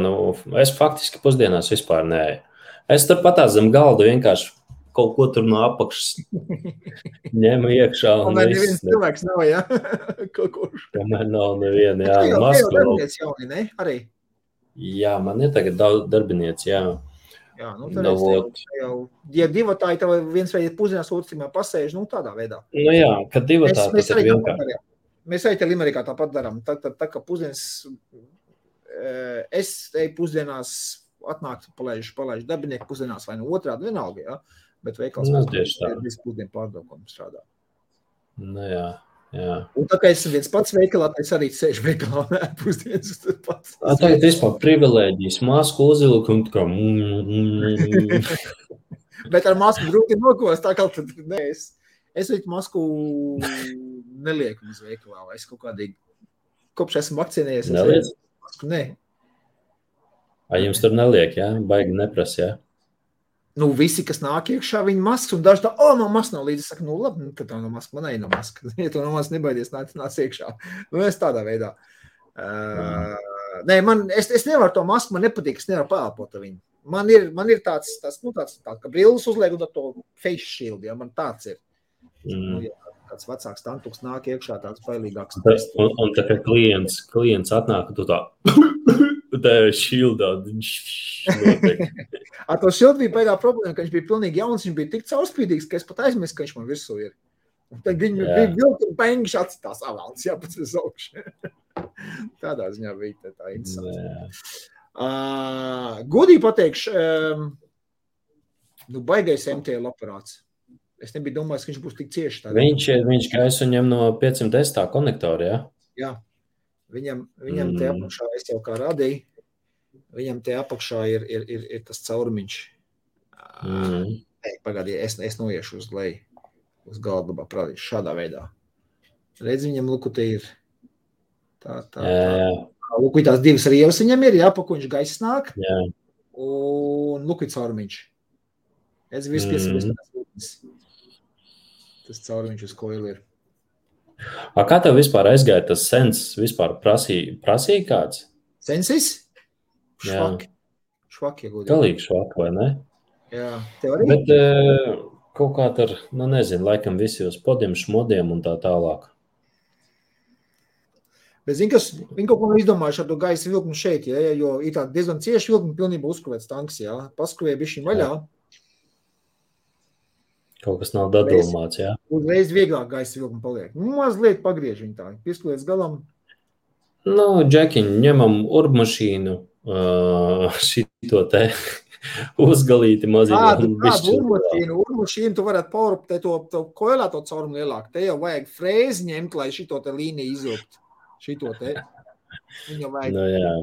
Es faktiski pusdienās vispār nē. Es tur patās zem galdu vienkārši kaut ko tur no apakšas ņemu iekšā. Tomēr neviens cilvēks nav, jā? Tomēr nav neviena, jā. Tev jau darbiniec jauni, ne? Arī? Jā, man ir tagad darbiniec, jā. Jā, tad ja divotāji tev viens vai pusdienās otrs pasēž, tādā veidā. Jā, kad divotāji tas ir vienkārši. Mēs arī te Limerikā tāpat darām. Tā kā pusdienas, es eju pusdienās atnākt, palaižu darbinieku pusdienās vai no otrādi vienalga, jā. Bet veikals ir visu pusdienu pārdokumu strādā. Jā. Un tā kā es viens pats veikalā, es arī sēžu veikalā un pusdienas pats. Tagad vispār privilēģijas, masku uzvilku un kā Bet ar masku grūti nokos, tā kā tad nē, es viņu masku nelieku uz veikalā, vai es kaut kādīgi, kopš esmu vakcinējies. Neliec? Nē. Jums tur neliek, jā? Baigi neprasa, jā? Nu, visi, kas nāk iekšā, viņi maskas, un daži tā, man maska nav līdzi. Es saku, nu, labi, tad tā nav maska, man nav maska. Ja tu no maska nebaidies, nāc iekšā. Nu, es tādā veidā. Nē, es nevaru to masku, man nepatīk, es nevaru pēlpot ar viņu. Man ir tāds, ka brilles uzliek un to face shield, ja, man tāds ir. Nu, ja kāds vecāks tantuks nāk iekšā, tāds bailīgāks. Un tā kā klients atnāk, tu tā, tā ir shieldā. Ar to shield bija baigā problēma, ka viņš bija pilnīgi jauns, viņš bija tik caurspīdīgs, ka es pat aizmirsu, ka viņš man virsū ir. Un tad viņi bija vilki un bēngiši atcitās avalns, jāpēc uz augšu. Tādā ziņā bija tā interesanti. Godīgi pateikšu, baigais MTL aparāts. Es nebiju domājis, ka viņš būs tik cieši tādā. Viņš gaisu ņem no 510 tā konektora, ja? Jā. Viņam te apakšā, es jau kā radīju, viņam te apakšā ir tas caurumiņš. Pagādī, es noiešu uz leju, uz galdabā, prādīšu šādā veidā. Redz, viņam luku te ir tā. Luku tās divas rievas viņam ir, jā, pa ko viņš gaisa nāk. Jā. Un luku ir caurumiņš. Es vispies. Tas caurumiņš uz koili ir. Kā tev vispār aizgāja tas sens? Vispār prasīja kāds? Sensis? Švaki, ja godīgi. Galīgi švaki, vai ne? Jā, tev arī? Bet kaut kā ar, nezinu, laikam visi uz podiem, šmodiem un tā tālāk. Bet zini, kas, viņi kaut ko izdomājuši ar to gaisa vilknu šeit, ja, jo ir tā diezgan cieši vilknu pilnībā uzskruvēts tanks, jā. Paskruvē bišķiņ vaļā. Kaut kas nav dadulmāts, jā. Uzreiz vieglāk gaisa vilknu paliek. Mazliet pagriež viņu tā, pieskrūlies galam. Džekiņ, ņemam urbmašīnu, šito te uzgalīti maziņu. Kādu urbmašīnu tu varētu paurupt, to koilā to caurumu lielāk. Te jau vajag frēzi ņemt, lai šito te līniju izvilkt. Šito te. Viņam vajag. Jā.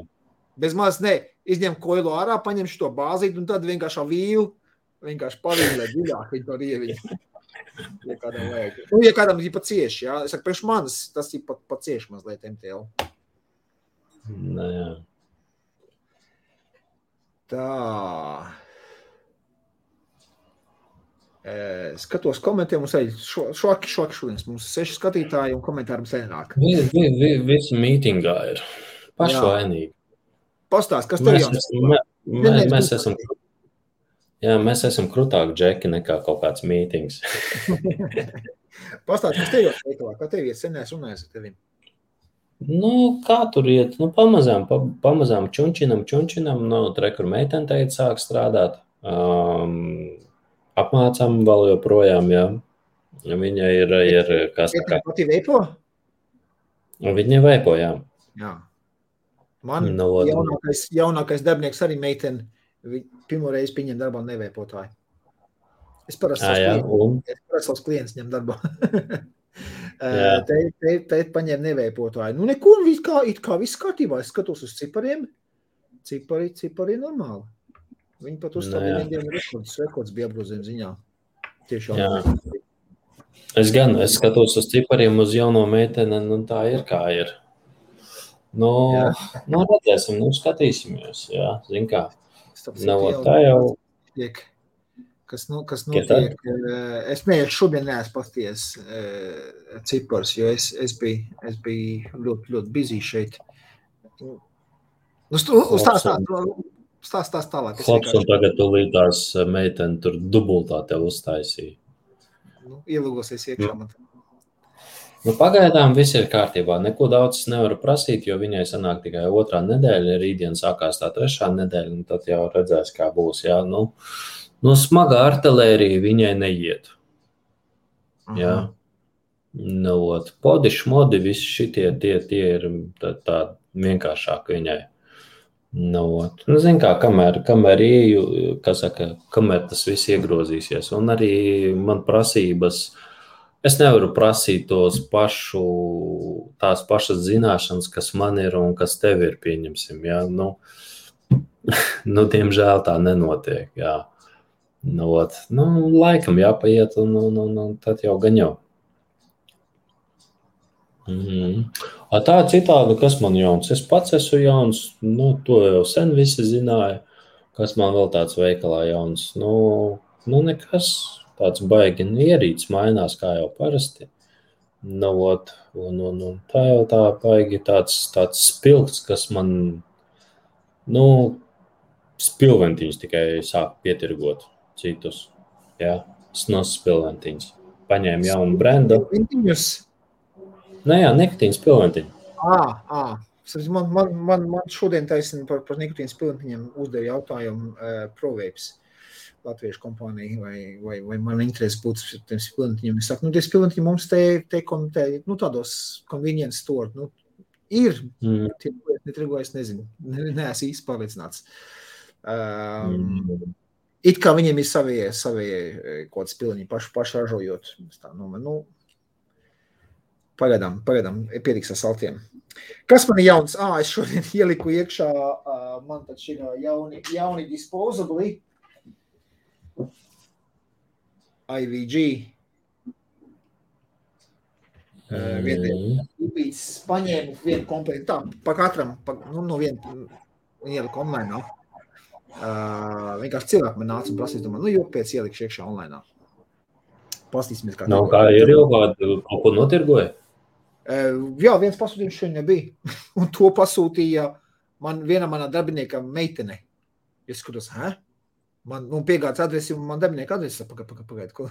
Bez maz, izņem koilu ārā, paņem šito bāzīt un tad vienkārši vīlu. Vienkārši pavīlē dziļāk viņu to rieviņu. Ja kādam vajag. Ja kādam ir pa cieši, jā. Es saku, priekš manis tas ir pa cieši mazliet MTL. Jā. Tā. Skatos komentē, mums ir švaki šodienas. Mums ir 6 skatītāji un komentāri mums nenāk. Visi mītingā ir pašvainīgi. Pastāst, kas tev jauns? Mēs esam krūtāki džeki nekā kaut kāds mītings. Pastāst, kas tev jau veikalā? Kā tev iet? Sen runājas ar tevim? Kā tur iet? Pamazām čunčinam. Kur meitene teica sāk strādāt. Apmācām vēl joprojām, jā. Viņa ir kā saka. Pati veipo? Viņa veipo, jā. Jā. Man jaunākais darbinieks arī meitene. Pirmo reizi pieņem darbā neveipotāju. Es parasti savus klientus ņem darbā. Te paņem neveipotāju. Neko, it kā viss kārtībā. Es skatos uz cipariem. Cipari normāli. Viņi pat uzstādīja vieniem rekords bija apgrozījuma ziņā. Tiešām. Es skatos uz cipariem uz jauno meiteni, tā ir kā ir. Redzēsim, skatīsimies, jā, zin kā. Tā jau. Kas notiek? Es šodien neesmu pasties cipars, jo es biju ļoti busy šeit. Stāst tālāk. Klaps un tagad tūlītās meiteni tur dubultā tev uztaisīja. Ielūgosies iekšā man. Pagaidām viss ir kārtībā. Neko daudz nevaru prasīt, jo viņai sanāk tikai 2. nedēļa, rītdien sākās tā 3. nedēļa, un tad jau redzēs, kā būs. Jā. Smaga artilērija viņai neiet. Jā. Podi, šmodi, visi šitie tie ir tā vienkāršāk viņai. Zin kā, kamēr ieju, kamēr tas viss iegrozīsies. Un arī man prasības. Es nevaru prasīt tās pašas zināšanas, kas man ir un kas tev ir, pieņemsim. Jā. Diemžēl tā nenotiek. Jā. Laikam jāpaiet un tad jau gan jau. Tā citādi, kas man jauns? Es pats esmu jauns, to jau sen visi zināja. Kas man vēl tāds veikalā jauns? Nu nekas tāds baigi. Ierīts mainās kā jau parasti. Nu, un tā jau tā baigi tāds spilgts, kas man, spilventiņus tikai sāk pietirgot citus. Jā, snos spilventiņus. Paņēma jaunu brendu. Spilventiņus? Jā, nikotīnas spilventiņu. Man šodien taisni par nikotīnas spilventiņiem uzdeva jautājumu ProVapes latviešu kompānija, vai man interesi būtu tiem spilventiņiem. Es saku, tie spilventiņi mums te tādos convenience store, ir, tie netrigo, es nezinu, neesmu īsti pārliecināts. It kā viņiem ir savie kaut spilventiņi paši ražojot. Pagaidām, pietiks ar saltiem. Kas man ir jauns? Es šodien ieliku iekšā, man taču ir jauni disposabli. IVG. Viens paņēmu vienu komplektu. Tā, pa katram, no vienu ieliku online. Vienkārši cilvēki man nāca un prasīs, domā, jo pēc ielikšu iekšā online. Pastīsimies, kā kā ir jau kādu kaut ko notirgoja? Jā, viens pasūtījums šodien nebija. Un to pasūtīja viena manā darbinieka meitene. Es skatos, Man piegāds adresi, un man darbinieka adresi, pagaid, ko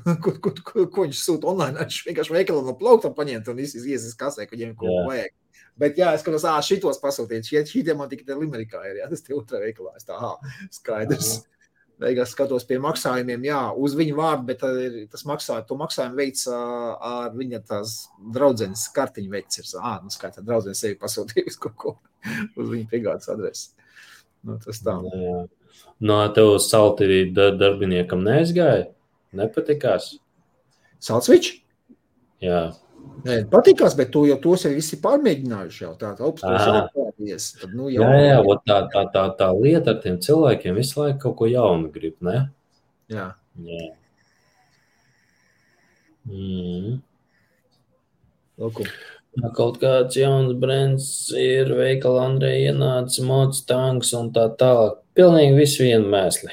viņš sūta online. Viņš vienkārši veikalā no plaukta paņemt un iesies kasē, ka viņiem ko vajag. Bet jā, es skatos, šitos pasūtīt. Šitie man tikai Limerikā ir, tas te otrā veikalā. Es skaidrs. Beigās skatos pie maksājumiem, uz viņu vārdu, bet to maksājumu veids ar viņa tās draudzenes kartiņu veids ir. Skaitā draudzenes sevi pasūtījusi kaut ko uz viņa piegādes adresi. Tas tā. Tev salti darbiniekam neaizgāja? Nepatikās? Saltsvič? Jā. Nē, patikās, bet to jau tos arī visi pārmēģinājuši jau. Tā augstās. Jā, tā lieta ar tiem cilvēkiem visu laiku kaut ko jaunu grib, ne? Jā. Lūku. Kaut kāds jauns brands ir veikala Andreja ienāca, mods, tanks un tā tālāk. Pilnīgi visu vienu mēsli.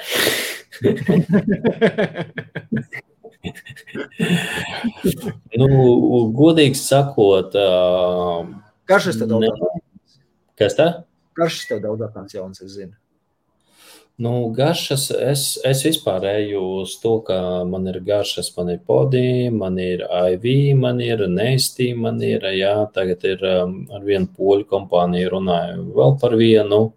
Godīgi sakot... Garšas tev daudz atnāks. Kas tā? Garšas tev daudz atnāks jauns, es zinu. Garšas, es vispār eju uz to, ka man ir garšas, man ir Podi, man ir IV, man ir Nesti, man ir, tagad ir ar vienu poļu kompāniju runāju vēl par vienu.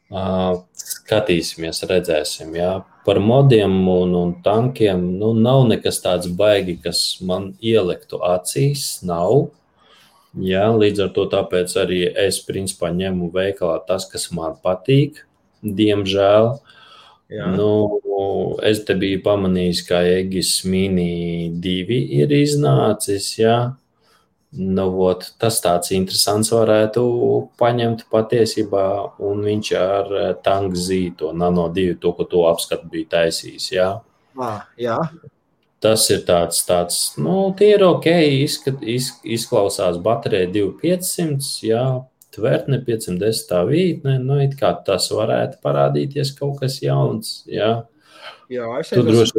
Skatīsimies, redzēsim, Par modiem un tankiem, nav nekas tāds baigi, kas man ieliktu acīs, nav. Līdz ar to tāpēc arī es principā ņemu veikalā tas, kas man patīk. Diemžēl. Es te biju pamanījis, ka Egis Mini 2 ir iznācis, tas tāds interesants varētu paņemt patiesībā, un viņš ar Tank Z, to Nano 2, to, ko to apskatu bija taisījis, Jā. Tas ir tāds, tie ir ok, izklausās baterija 2500, Tvertne 510 vītne, it kā tas varētu parādīties kaut kas jauns, Tu droši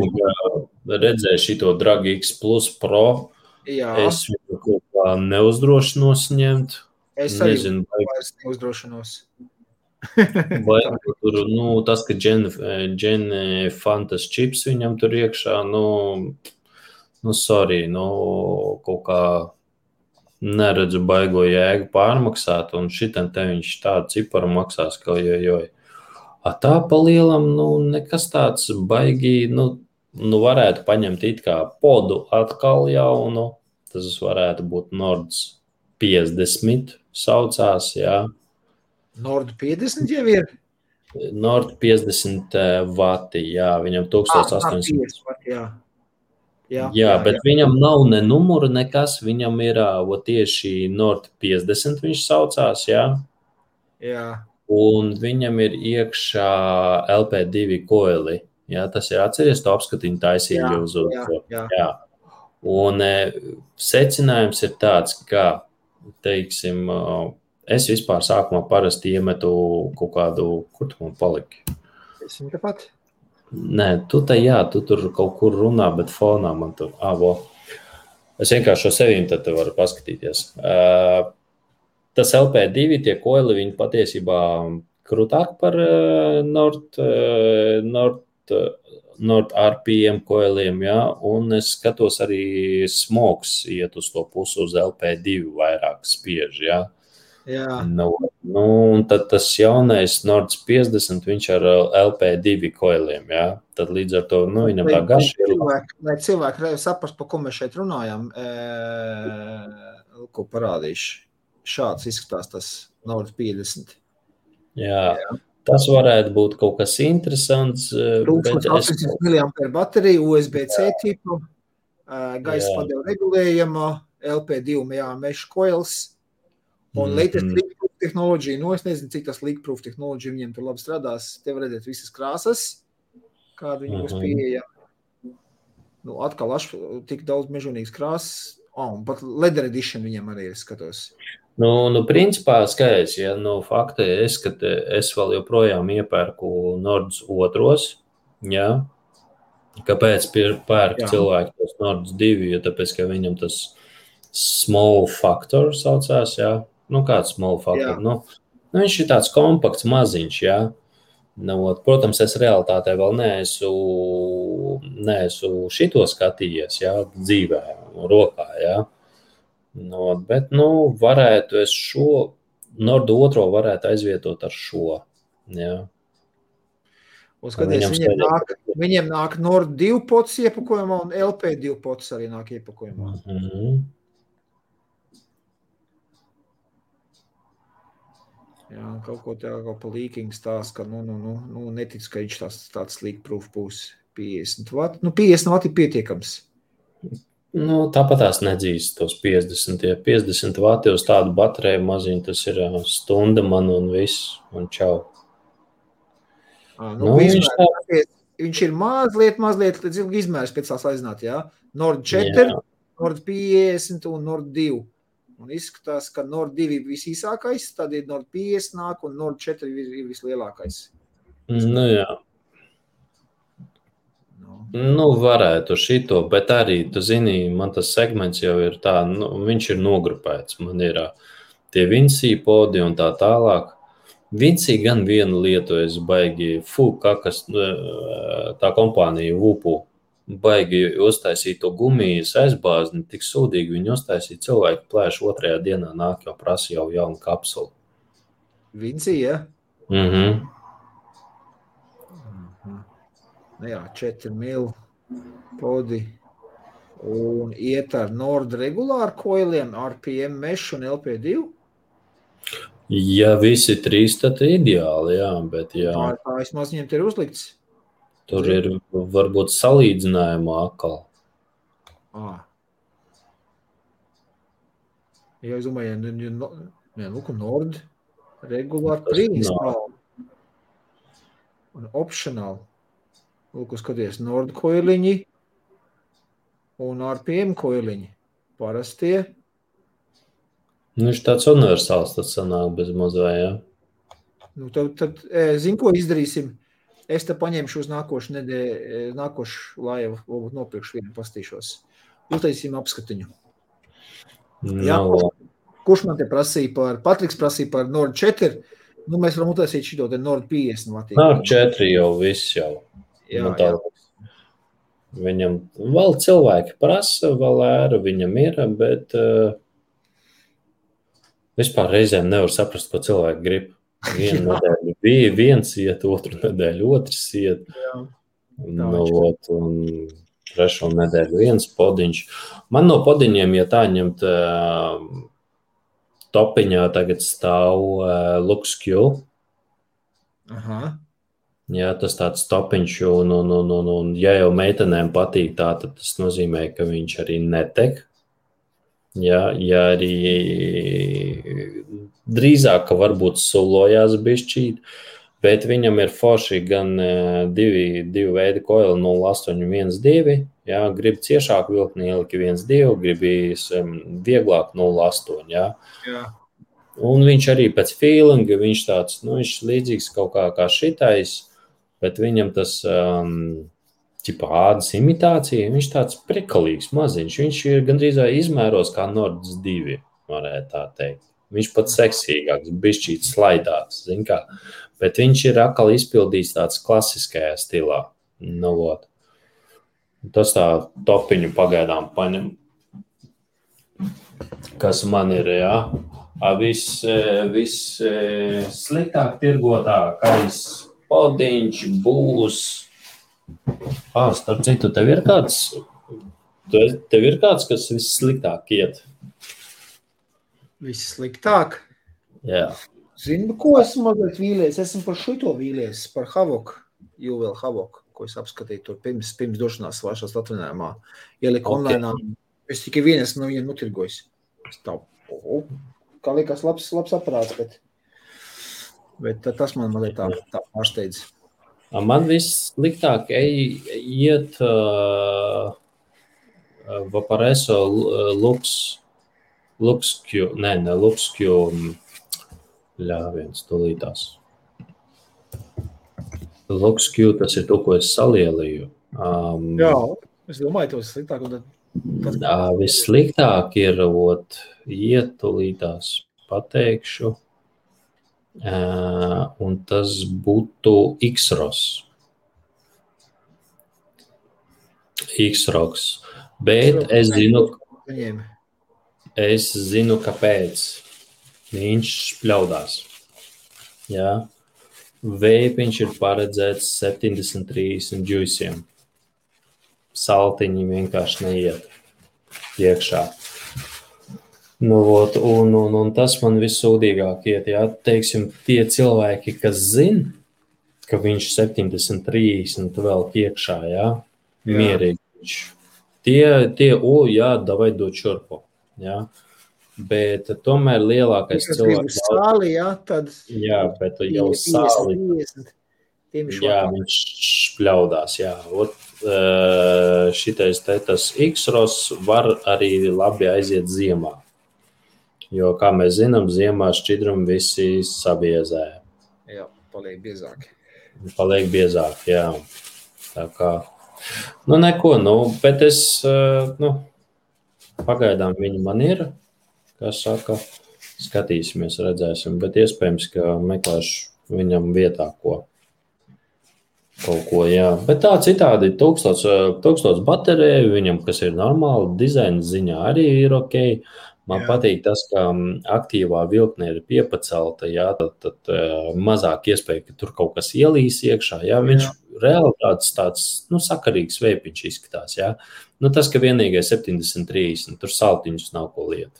redzēji šito Drag X Plus Pro, es viņu kaut kā neuzdrošinos ņemt. Es arī vairs neuzdrošinos. Vai tur, tas, ka Gen Fantas čips viņam tur iekšā, sorry, kaut kā neredzu baigo jēgu pārmaksāt, un šitam te viņš tādu ciparu maksās, ka joj. Tā pa lielam, nekas tāds baigi, varētu paņemt it kā podu atkal jaunu, tas varētu būt Nords 50 saucās, Nord 50 jau ir? Nord 50 vati, viņam 1800 vati, Jā, bet viņam nav ne numuru nekas, viņam ir tieši Nord 50 viņš saucās, un viņam ir iekšā LP2 koili, tas ir atceries, to apskatiņu taisīja uz Jā. Un secinājums ir tāds, ka, teiksim, es vispār sākumā parasti iemetu kaut kādu, kur tu man paliki? Esmu tepat. Nē, tu tur kaut kur runā, bet fonā man tur, Es vienkārši šo sevīm tad varu paskatīties. Tas LP2, tie koili, viņi patiesībā krūtāk par Nord RPM koiliem, ja? Un es skatos arī smogs iet uz to pusi uz LP2 vairāk spiež, ja? Jā. Un tad tas jaunais Nords 50, viņš ar LP2 koiliem, ja? Tad līdz ar to, viņam tā garša ir. Lai cilvēki saprast, par ko mēs šeit runājam, ko parādīšu. Šāds izskatās tas Nord 50. Jā. Tas varētu būt kaut kas interesants. 800 mAh baterija, USB-C tipu, gaisa padevu regulējama, LP2 mesh coils un latest leak-proof tehnoloģija. Es nezinu, cik tas leak-proof tehnoloģija viņiem tur labi strādās. Te var redzēt visas krāsas, kāda viņi būs pieejama. Atkal tik daudz mežonīgas krāsas. Un pat leather edition viņiem arī skatos. Principā skaidrs, ja fakta es vēl joprojām iepērku Nords otros, ja. Kāpēc pērk cilvēki tos Nords 2, jo tāpēc, ka viņam tas small factor saucās, ja. Kāds small factor? Viņš ir tāds kompakts maziņš, ja. Protams, es realitātē vēl neesmu šito skatījies, ja, dzīvē, rokā, ja. Bet, varētu es šo Nordu otro varētu aizvietot ar šo, ja. Skaties, viņiem nāk Nord 2 pots iepakojumā un LP2 pots arī nāk iepakojumā. Jā, kaut ko pa leaking stāst, ka netic, ka viņš tāds leak-proof būs 50 vati. 50 vati ir pietiekams. Tāpat tās nedzīst tos 50. Ja 50 vati uz tādu bateriju maziņu, tas ir stunda man un viss, un čau. Viņš ir mazliet izmērs pēc tās aiznāt, jā? Nord 4, Nord 50 un Nord 2. Un izskatās, ka Nord 2 ir visīsākais, tad ir Nord 50 nāk un Nord 4 ir vislielākais. Jā. Varētu šito, bet arī, tu zini, man tas segments jau ir tā, viņš ir nogrupēts. Man ir tie Vinci podi un tā tālāk. Vinci gan vienu lietu es baigi, tā kompānija Vupu, baigi uztaisīt to gumijas aizbāzni, tik sūdīgi viņi uztaisīja cilvēku plēšu otrajā dienā nāk jau prasa jau jaunu kapsulu. Vinci, ja? Jā, 4 mil podi un iet ar Nord regulāru koiliem, RPM mesh un LP2? Ja visi trīs, tad ideāli, jā, bet jā. Tā vismaz viņiem te ir uzlikts. Tur ir varbūt salīdzinājumā atkal. Ja es domāju, Nord regulāri pre-install un optional. Skaties, Nord koiliņi un RPM koiliņi. Parastie. Viņš tāds universāls tas sanāk bez mazvē, jā. Tad zinu, ko izdarīsim. Es te paņemšu uz nākošu laivu, varbūt nopirkšu vienu, pastīšos. Uztaisīsim apskatiņu. Jā, kurš man te prasīja Patriks prasīja par Nord 4, mēs varam uztaisīt šito te Nord 50 vatīgi. 4 jau viss jau. Jā. Viņam vēl cilvēki prasa, vēl ēra viņam ir, bet vispār reizēm nevar saprast, ko cilvēki grib. Vienu nedēļu bija viens iet, otru nedēļu otrs iet. Un trešo nedēļu viens podiņš. Man no podiņiem, ja tā ņemt topiņā tagad stāv LuxQ. Jā, tas tāds topiņš, un ja jau meitenēm patīk tā, tad tas nozīmē, ka viņš arī netek. Ja arī drīzāk, ka varbūt sulojās bišķīt, bet viņam ir forši gan divi veidi koili 0,812, ja, grib ciešāk vilkni ieliki 1,2, gribīs vieglāk 0,8, ja. Un viņš arī pēc feelinga, viņš tāds, viņš līdzīgs kaut kā šitais, bet viņam tas ādas imitācija, viņš tāds prikalīgs maziņš. Viņš ir gandrīz izmēros kā Nords 2, varētu tā teikt. Viņš pat seksīgāks, bišķīt slaidāks, zin kā. Bet viņš ir atkal izpildīts tāds klasiskajā stilā. Nu, vot. Tas tā topiņu pagaidām paņem. Kas man ir, jā. Viss sliktāk tirgotākais podiņš būs. Starp citu, tev ir kāds, kas vissliktāk iet? Vissliktāk? Jā. Zinu, ko esmu mazliet vīlies. Esmu par šito vīlies, par Havoku, Juvel Havoku, ko es apskatīju tur pirms došanās svāršās atvinājumā. Ieliku online. Es tikai vien esmu no viņiem notirgojis. Kā liekas labs aparāts, bet tas man mazliet tā pārsteidz. Man vissliktāk iet Vaporeso LuxQ, ne LuxQ, viens tūlītās. LuxQ, tas ir to, ko es salielīju. Jā, es domāju, tos sliktāk. Vissliktāk ir, iet tūlītās pateikšu, un tas būtu X-Ros. X-Roks. Bet es zinu, kāpēc viņš špļaudās. Jā. Veipiņš ir paredzēts 73 džuisiem. Saltiņi vienkārši neiet iekšā. Nu, un tas man vissūdīgāk iet. Jā. Teiksim, tie cilvēki, kas zina, ka viņš 70-30 vēl iekšā, jā, mierīgi. Jā, davai dot šurpu. Jā. Bet tomēr lielākais cilvēks... Sāli, jā, tad... Jā, bet jau sāli... Jā, viņš špļaudās, jā. Šitais tas X-Ros var arī labi aiziet ziemā. Jo, kā mēs zinām, ziemā šķidrumi visi sabiezē. Jā, paliek biezāki. Paliek biezāki, jā. Tā kā... neko, bet es... pagaidām viņi man ir... Kā saka, skatīsimies, redzēsim, bet iespējams, ka meklēšu viņam vietā kaut ko, jā. Bet tā citādi 1000 bateriju viņam, kas ir normāli, dizaina ziņā arī ir ok. Man patīk tas, ka aktīvā vilkne ir piepacelta, jā, tad mazāk iespēja, ka tur kaut kas ielīs iekšā, jā. Viņš reāli tāds sakarīgs veipiņš izskatās, jā. Tas, ka vienīgais 70-30, tur saltiņus nav ko liet.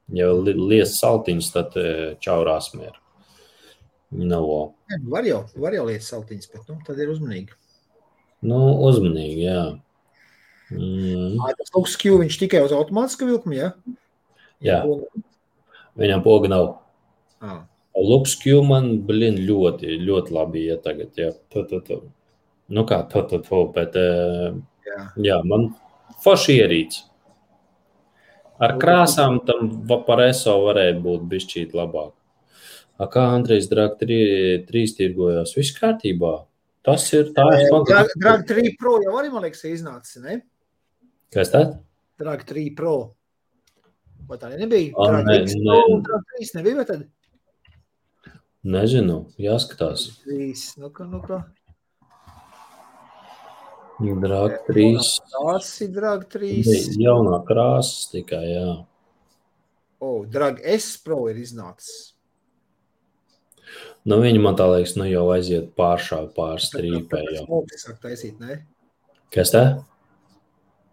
Ja lies saltiņus, tad čaurās mieru. Var jau liet saltiņus, bet tad ir uzmanīgi. Uzmanīgi, jā. Tas LuxQ, viņš tikai uz automātiska vilkuma, jā? Jā. Viņam poga nav. LuxQ man, ļoti, ļoti labi iet tagad, jā. Bet jā, man forši ierīts. Ar krāsām tam Vaporeso varēja būt bišķīt labāk. Kā Andrejs Drag 3 tirgojās? Viss kārtībā. Tas ir tā. Drag 3 Pro jau arī, man liekas, iznācis, ne? Kas tā? Drag 3 Pro. Vai tā nebija? Drag X Pro un Drag 3 nebija, vai tad? Nezinu, jāskatās. 3, kā? Drag 3. Tas ir Drag 3. Jaunā krāsas tikai, jā. Drag S Pro ir iznācis. Viņi man tā liekas, jau aiziet pārstrīpē jau. Tas sāk taisīt, ne? Kas tā?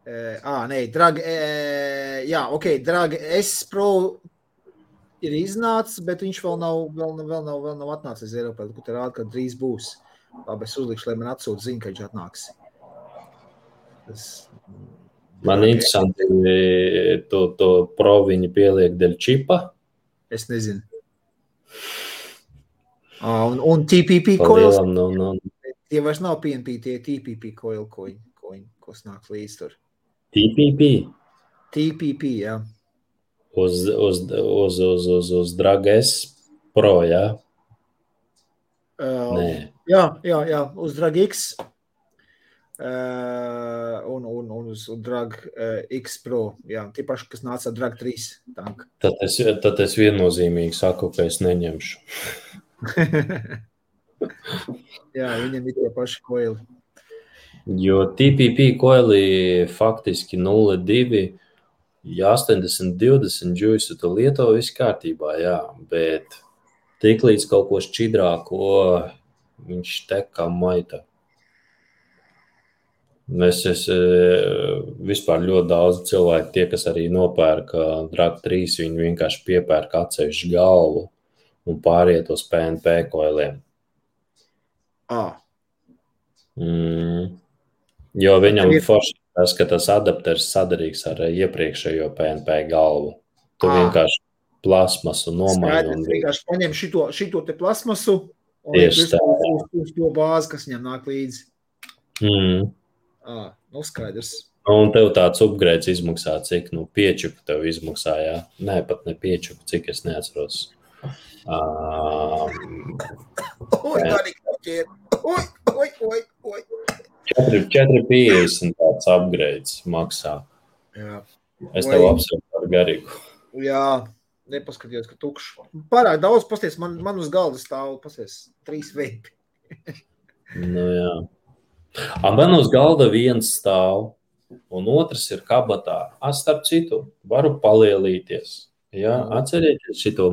Drag, Drag S Pro ir iznācis, bet viņš vēl nav atnācis Eiropā, kur te rāda, ka drīz būs. Labi, es uzlikšu, lai man atsūt ziņu, ka viņš atnāks. Man interesanti, to Pro viņi pieliek dēļ čipa. Es nezinu. Un TPP coils. Tie vairs nav PNP, tie TPP coil, ko snāk līdz tur. TPP? TPP, jā. Uz Drag S Pro, jā? Nē. Jā, uz Drag X un uz Drag X Pro. Jā, tie paši, kas nāca ar Drag 3 tanku. Tad es viennozīmīgi saku, ka es neņemšu. Jā, viņam ir tie paši koili. Jo TPP koili faktiski 0,2, ja 80-20 džuisu tu lieto viss kārtībā, jā, bet tik līdz kaut ko šķidrāko viņš tek kā maita. Es vispār ļoti daudz cilvēku, tie, kas arī nopērka Drag 3, viņi vienkārši piepērka atsevišķu galvu un pāriet uz PNP koiliem. Jo viņam forši tas, ka tas adapters sadarīgs ar iepriekšējo PNP galvu. Tu vienkārši plasmasu nomaini. Un vienkārši paņem šito te plasmasu un uz to bāzi, kas viņam nāk līdzi. Nu skaidrs. Un tev tāds upgrades izmaksā, cik, 5 tev izmaksā, jā? Nē, pat ne 5, cik es neatceros. Oi. 4,50 tāds upgrades maksā. Jā. Es tev apsveicu ar garīgu. Jā, nepaskatījos, ka tukšs. Pārāk daudz, pasties, man uz galda stāv, pasties, 3 veipi. Nu jā. Man uz galda viens stāv, un otrs ir kabatā. Starp citu, varu palielīties. Jā, atcerieties šito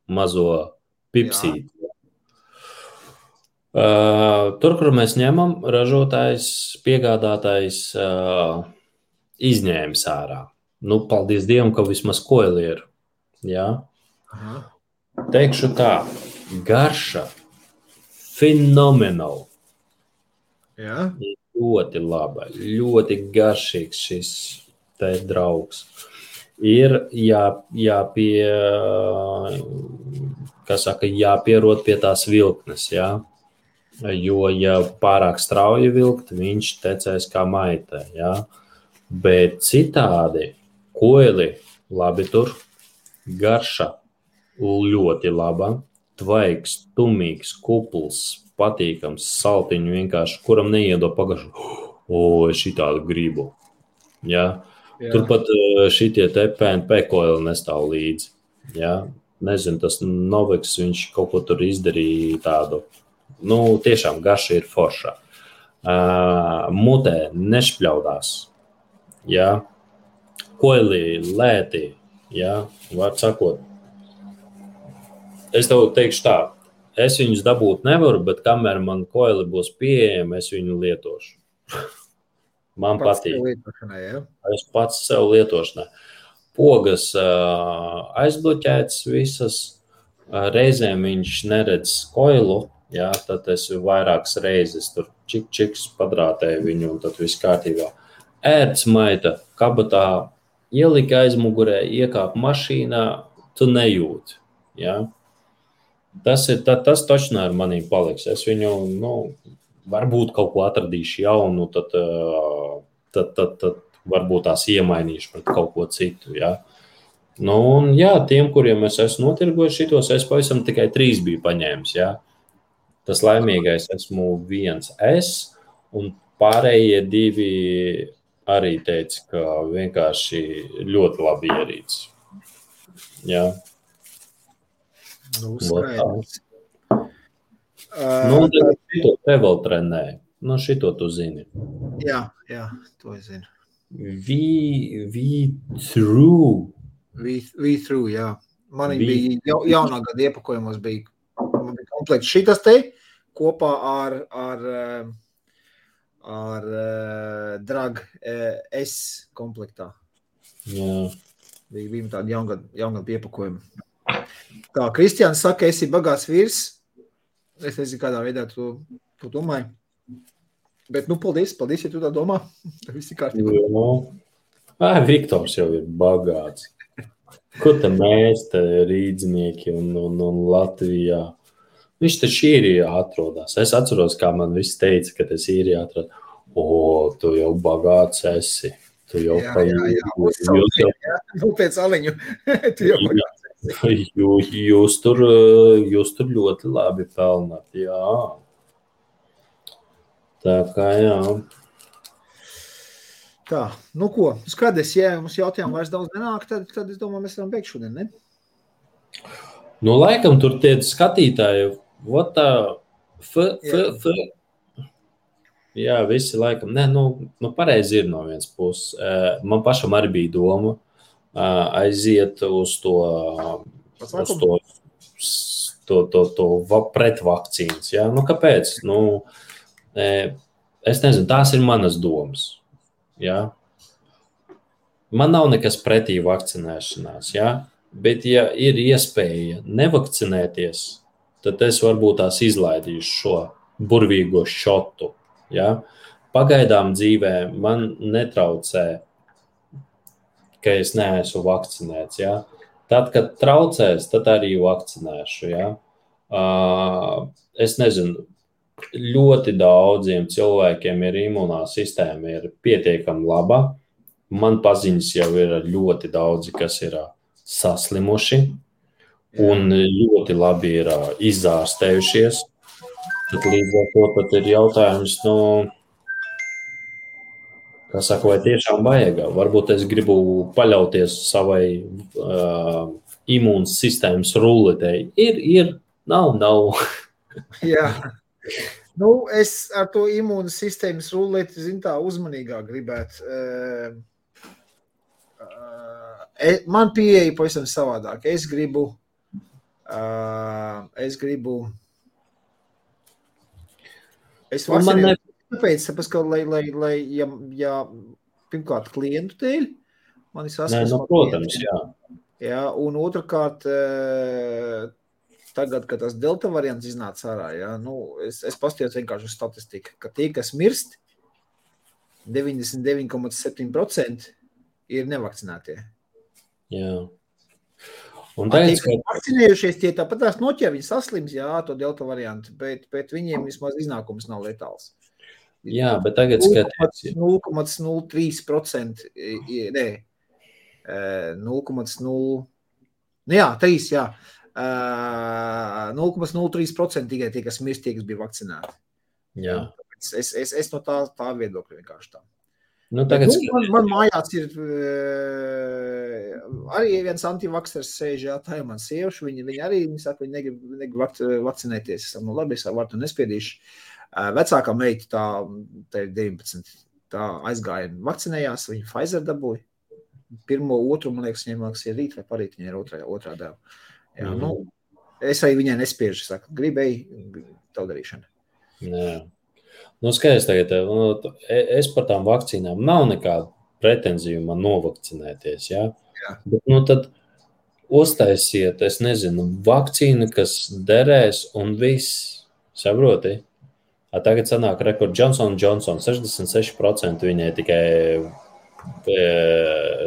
mazo pipsīti. Tur, kur mēs ņemam, ražotājs, piegādātājs izņēmis ārā. Paldies Dievam, ka vismaz koili ir. Jā? Teikšu tā, garša fenomenāli. Jā? Ļoti laba, ļoti garšīgs šis te draugs. Ir jāpierod pie tās vilknes, jā? Jo, ja pārāk strauji vilkt, viņš tecēs kā maitē, jā? Bet citādi koili labi tur, garša ļoti laba, tvaigs, tumīgs, kupls, patīkams, saltiņu vienkārši, kuram neiedo pagašu, šitādu gribu, jā? Turpat šitie te PNP koili nestāv līdzi, jā? Nezinu, tas Novex, viņš kaut ko tur izdarīja tādu. Tiešām garša ir forša. Mutē nešpļaudās. Jā. Koili lēti. Jā. Var sakot. Es tev teikšu tā. Es viņus dabūt nevaru, bet kamēr man koili būs pieejami, es viņu lietošu. Man patīk. Es pats sev lietošanai. Pogas aizbloķētas visas. Reizēm viņš neredz koilu. Jā, tad es vairākas reizes tur čiks padrātēju viņu un tad viss kārtībā. Ērts maita kabatā, ielika aizmugurē, iekāp mašīnā, tu nejūti. Jā. Tas točnā ar manīm paliks. Es viņu, varbūt kaut ko atradīšu jaunu, tad varbūt tās iemainīšu pret kaut ko citu. Jā. Un jā, tiem, kuriem es esmu notirgojis šitos, es pavisam tikai 3 biju paņēmis, jā. Tas laimīgais esmu viens es, un pārējie 2 arī teica, ka vienkārši ļoti labi ierīts. Jā. Skaidrs. Šito te vēl trenē. Šito tu zini. Jā, to es zinu. V-Through, jā. Man bija jaunā gada iepakojumos bija komplekts šitas te kopā ar Drag S komplektā. Jā. Bija tādi jaungad iepakojumi. Tā, Kristiāns saka, esi bagāts vīrs. Es nezinu, kādā veidā tu domāji. Bet, paldies, ja tu tā domā. Visi kārtībā. Viktors jau ir bagāts. Ko te mēs te rīdznieki un Latvijā? Viņš taču īrijā atrodas. Es atceros, kā man viss teica, ka es īrijā atrodas. Tu jau bagāts esi. Tu jau pēc aliņu. Tu jau bagāts esi. Jūs tur ļoti labi pelnāt, jā. Tā kā jā. Tā, nu ko, skaties, ja mums jautājumu vairs daudz nenāk, tad es domāju, mēs varam beigt šodien, ne? Nu, laikam tur tie skatītāji, jā, visi laikam, nu pareizi ir no vienas puses. Man pašam arī bija doma aiziet uz to pretvakcīnas, jā. Nu, kāpēc? Nu, es nezinu, tās ir manas domas. Ja? Man nav nekas pretī vakcinēšanās, ja? Bet ja ir iespēja nevakcinēties, tad es varbūt tās izlaidīšu šo burvīgo šotu. Ja? Pagaidām dzīvē man netraucē, ka es neesmu vakcinēts. Ja? Tad, kad traucēs, tad arī vakcinēšu. Ja? Es nezinu, ļoti daudziem cilvēkiem ir imunā sistēma ir pietiekami laba. Man paziņas jau ir ļoti daudzi, kas ir saslimuši un ļoti labi ir izārstējušies. Tad līdz ar to tad ir jautājums, vai tiešām vajag. Varbūt es gribu paļauties savai imūnas sistēmas ruletei. Ir, nav. Jā. Nu, es ar to imūnas sistēmas ruleti, tā uzmanīgāk gribētu. Man pieeja pavisam savādāk. Es gribu vakcinēju, tāpēc, ka, lai ja pirmkārt klientu dēļ, man ir saskarsme. Protams, jā. Jā, un otrkārt, tagad, kad tas delta variants iznāca ārā, ja, es pastījos vienkārši uz statistiku, ka tie, kas mirst, 99,7% ir nevakcinētie. Jā. Un tie, kas vakcinējušies, tie tāpat tās noķer, viņi saslims, jā, to delta variantu, bet viņiem vismaz iznākums nav letāls. Jā, bet tagad skaties. 0,03%, nē, 0,0, jā, 3, jā. 0,03% tikai tie, kas mirst, tie, kas bija vakcinēti. Jā. Es no tā viedokļa vienkārši tā. Nu, tagad man mājās ir arī viens antivaksers sēž, jā, tā ir man sievša, viņi arī, viņi saka, viņi negrib vakcinēties. Es saku, labi, es varu to nespiedīšu. Vecākā meita, tā ir 19, tā aizgāja vakcinējās, viņa Pfizer dabūja. Pirmo, otru, man liekas, viņiem ir rīt vai parīt, viņa ir otrā deva. Jā, es arī viņai nespiežu, saku, gribēju tavu darīšanu. Jā. Skaidrs tagad, es par tām vakcīnām nav nekāda pretenzija man novakcinēties, jā? Jā. Bet, tad uztaisiet, es nezinu, vakcīnu, kas derēs un viss, saproti? Tagad sanāk rekord Johnson & Johnson, 66% viņai tikai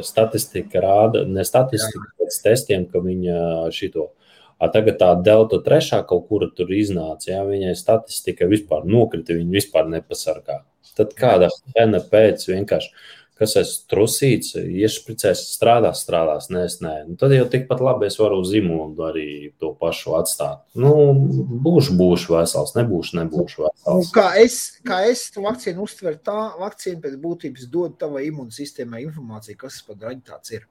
statistika rāda, ne statistika, pēc testiem, ka viņa šito. Tagad tā delta 3 kaut kura tur iznāca, jā, viņai statistika vispār nokrita, viņa vispār nepasargā. Tad kāda pēna pēc vienkārši, kas es trusīts, iešpricēs, strādās, nē. Tad jau tikpat labi es varu uz imūnu arī to pašu atstāt. Būšu vesels, nebūšu vesels. Kā es to vakcīnu uztveru, tā vakcīna pēc būtības dod tavai imūnsistēmai informāciju, kas par draņu tāds ir.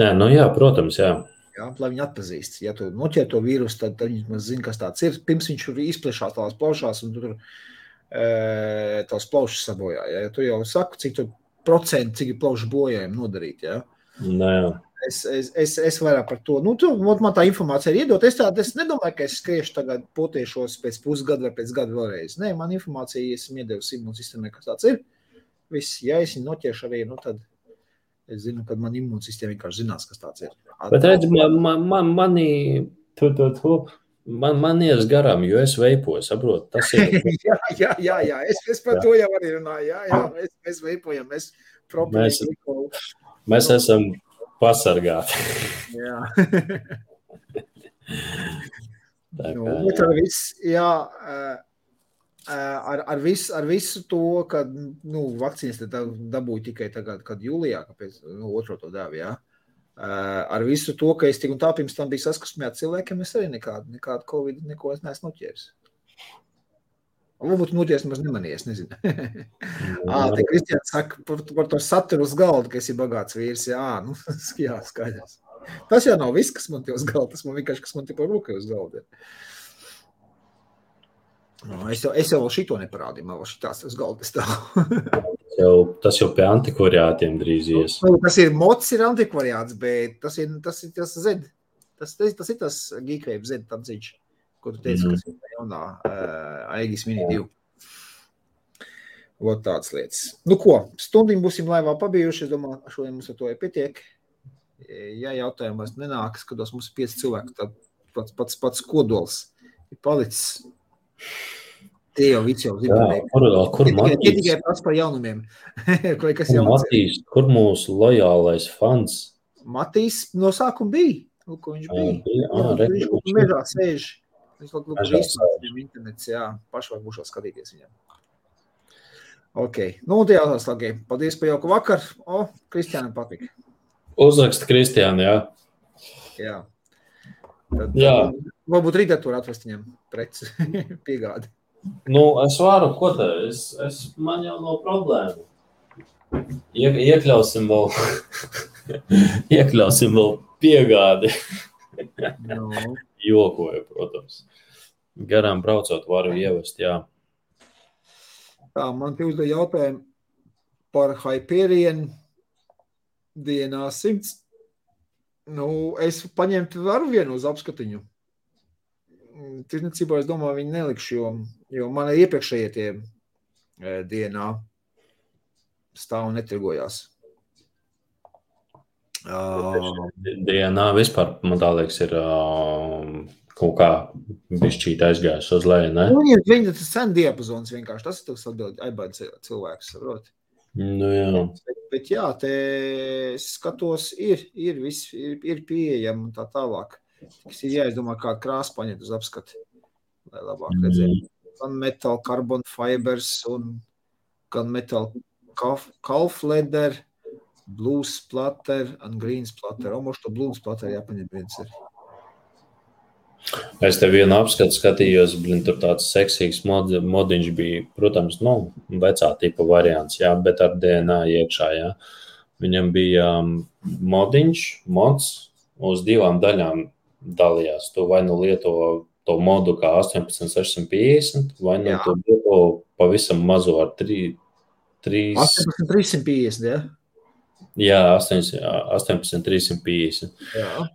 Nē, jā, protams, jā. Jā, lai viņi atpazīst. Ja tu noķer to vīrusu, tad viņi zina, kas tāds ir. Pirms viņš izplešās tās plaušās un tur tās plaušas sabojā. Ja tu jau saku, cik ir plaušu bojājumi nodarīt. Ja? Nē. Es vairāk par to. Man tā informācija ir iedot. Es nedomāju, ka es skriešu tagad potiešos pēc pusgada vai pēc gada vēlreiz. Nē, man informācija, esmu iedevis imūnsistēmai, kas tāds ir. Viss, ja es viņu noķeršu arī, tad es zinu, ka man imūnsistēma vienkārši zinās, kas tāds ir. Bet redz, man ies garām, jo es veipoju, saprotu, tas ir. jā, es par to jau arī runāju, jā, mēs veipojam, mēs esam pasargāti. Jā. Bet ar viss, jā, ar visu to, ka, vakcīnas dabūju tikai tagad, kad jūlijā, kāpēc, otro to devu, jā. Ar visu to, ka es tik un tā pirms tam biju saskarsmē ar cilvēkiem, es arī nekādu Covid, neko es neesmu noķēris. Varbūt mūties nemaz nemanies, nezinu. Te Kristiāns saka par to saturu uz galda, ka esi bagāts vīrs. Jā, skaidrs. Tas jau nav viss, kas man te uz galda. Tas man vienkārši, kas man te par rūkai uz galda. Es jau vēl šito neparādīju, man vēl šitās uz galda stāv. Tas jau pie antikvariātiem drīz ies. Tas ir mods, ir antikvariāts, bet tas ir Z. Tas ir tas Geekwave Z tanciņš. Ko tu teici, kas ir jaunā Aegis Mini 2. Vot tāds lietas. Nu ko, stundiņ būsim laivā pabijuši. Es domāju, šodien mums ar to pietiek. Ja jautājumi vairs nenāk, skatos, mums ir 5 cilvēki, tad pats kodols ir palicis. Tie jau viss jau zināja. Kur Matīs? Tikai pats par jaunumiem. Kur mūsu lojālais fans? Matīs no sākuma bija. Ko viņš bija? Viņš mežā sēž. Viņš vēl internets, paši var būšot skatīties viņam. Ok, un tie jautās lagi. Paldies par jauku vakar. Kristiānam patika. Uzraksta Kristiāna, jā. Jā. Tad varbūt rītā tur atvest viņam preci piegādi. Es varu, ko te? Man jau nav problēmu. Iekļausim vēl piegādi. Jokoju, protams. Garām braucot varu ievest, jā. Tā, man te uzdev jautājumu par Hyperion DNA 100. Es paņemtu varu vienu uz apskatiņu. Tirdzniecībā, es domāju, viņi nelikšu, jo man iepriekšējie tie DNA stāv un netirgojās. DNA vispār, man tā liekas, ir kaut kā bišķīt aizgājis uz leju, ne? Viņa tas sen diapazons vienkārši, tas ir tas atbild aibādi cilvēks, saprot? Jā. Bet jā, te skatos, ir viss, ir pieejam un tā tālāk. Tas ir jāizdomā, kādu krāsu paņemt uz apskati, lai labāk redzētu. Gan metal carbon fibers un gan metal calf leather, blue splatter un green splatter. Moš to blue splatter jāpaņem viens ir. Es te vienu apskatu skatījos, tur tāds seksīgs modiņš bija, protams, vecā tipa variants, jā, bet ar DNA iekšā, jā. Viņam bija mods uz 2 daļām dalījās. Tu vai lieto to modu kā 18650, vai tu lieto pavisam mazo ar 3... 18350, jā? Jā, 18350. Jā.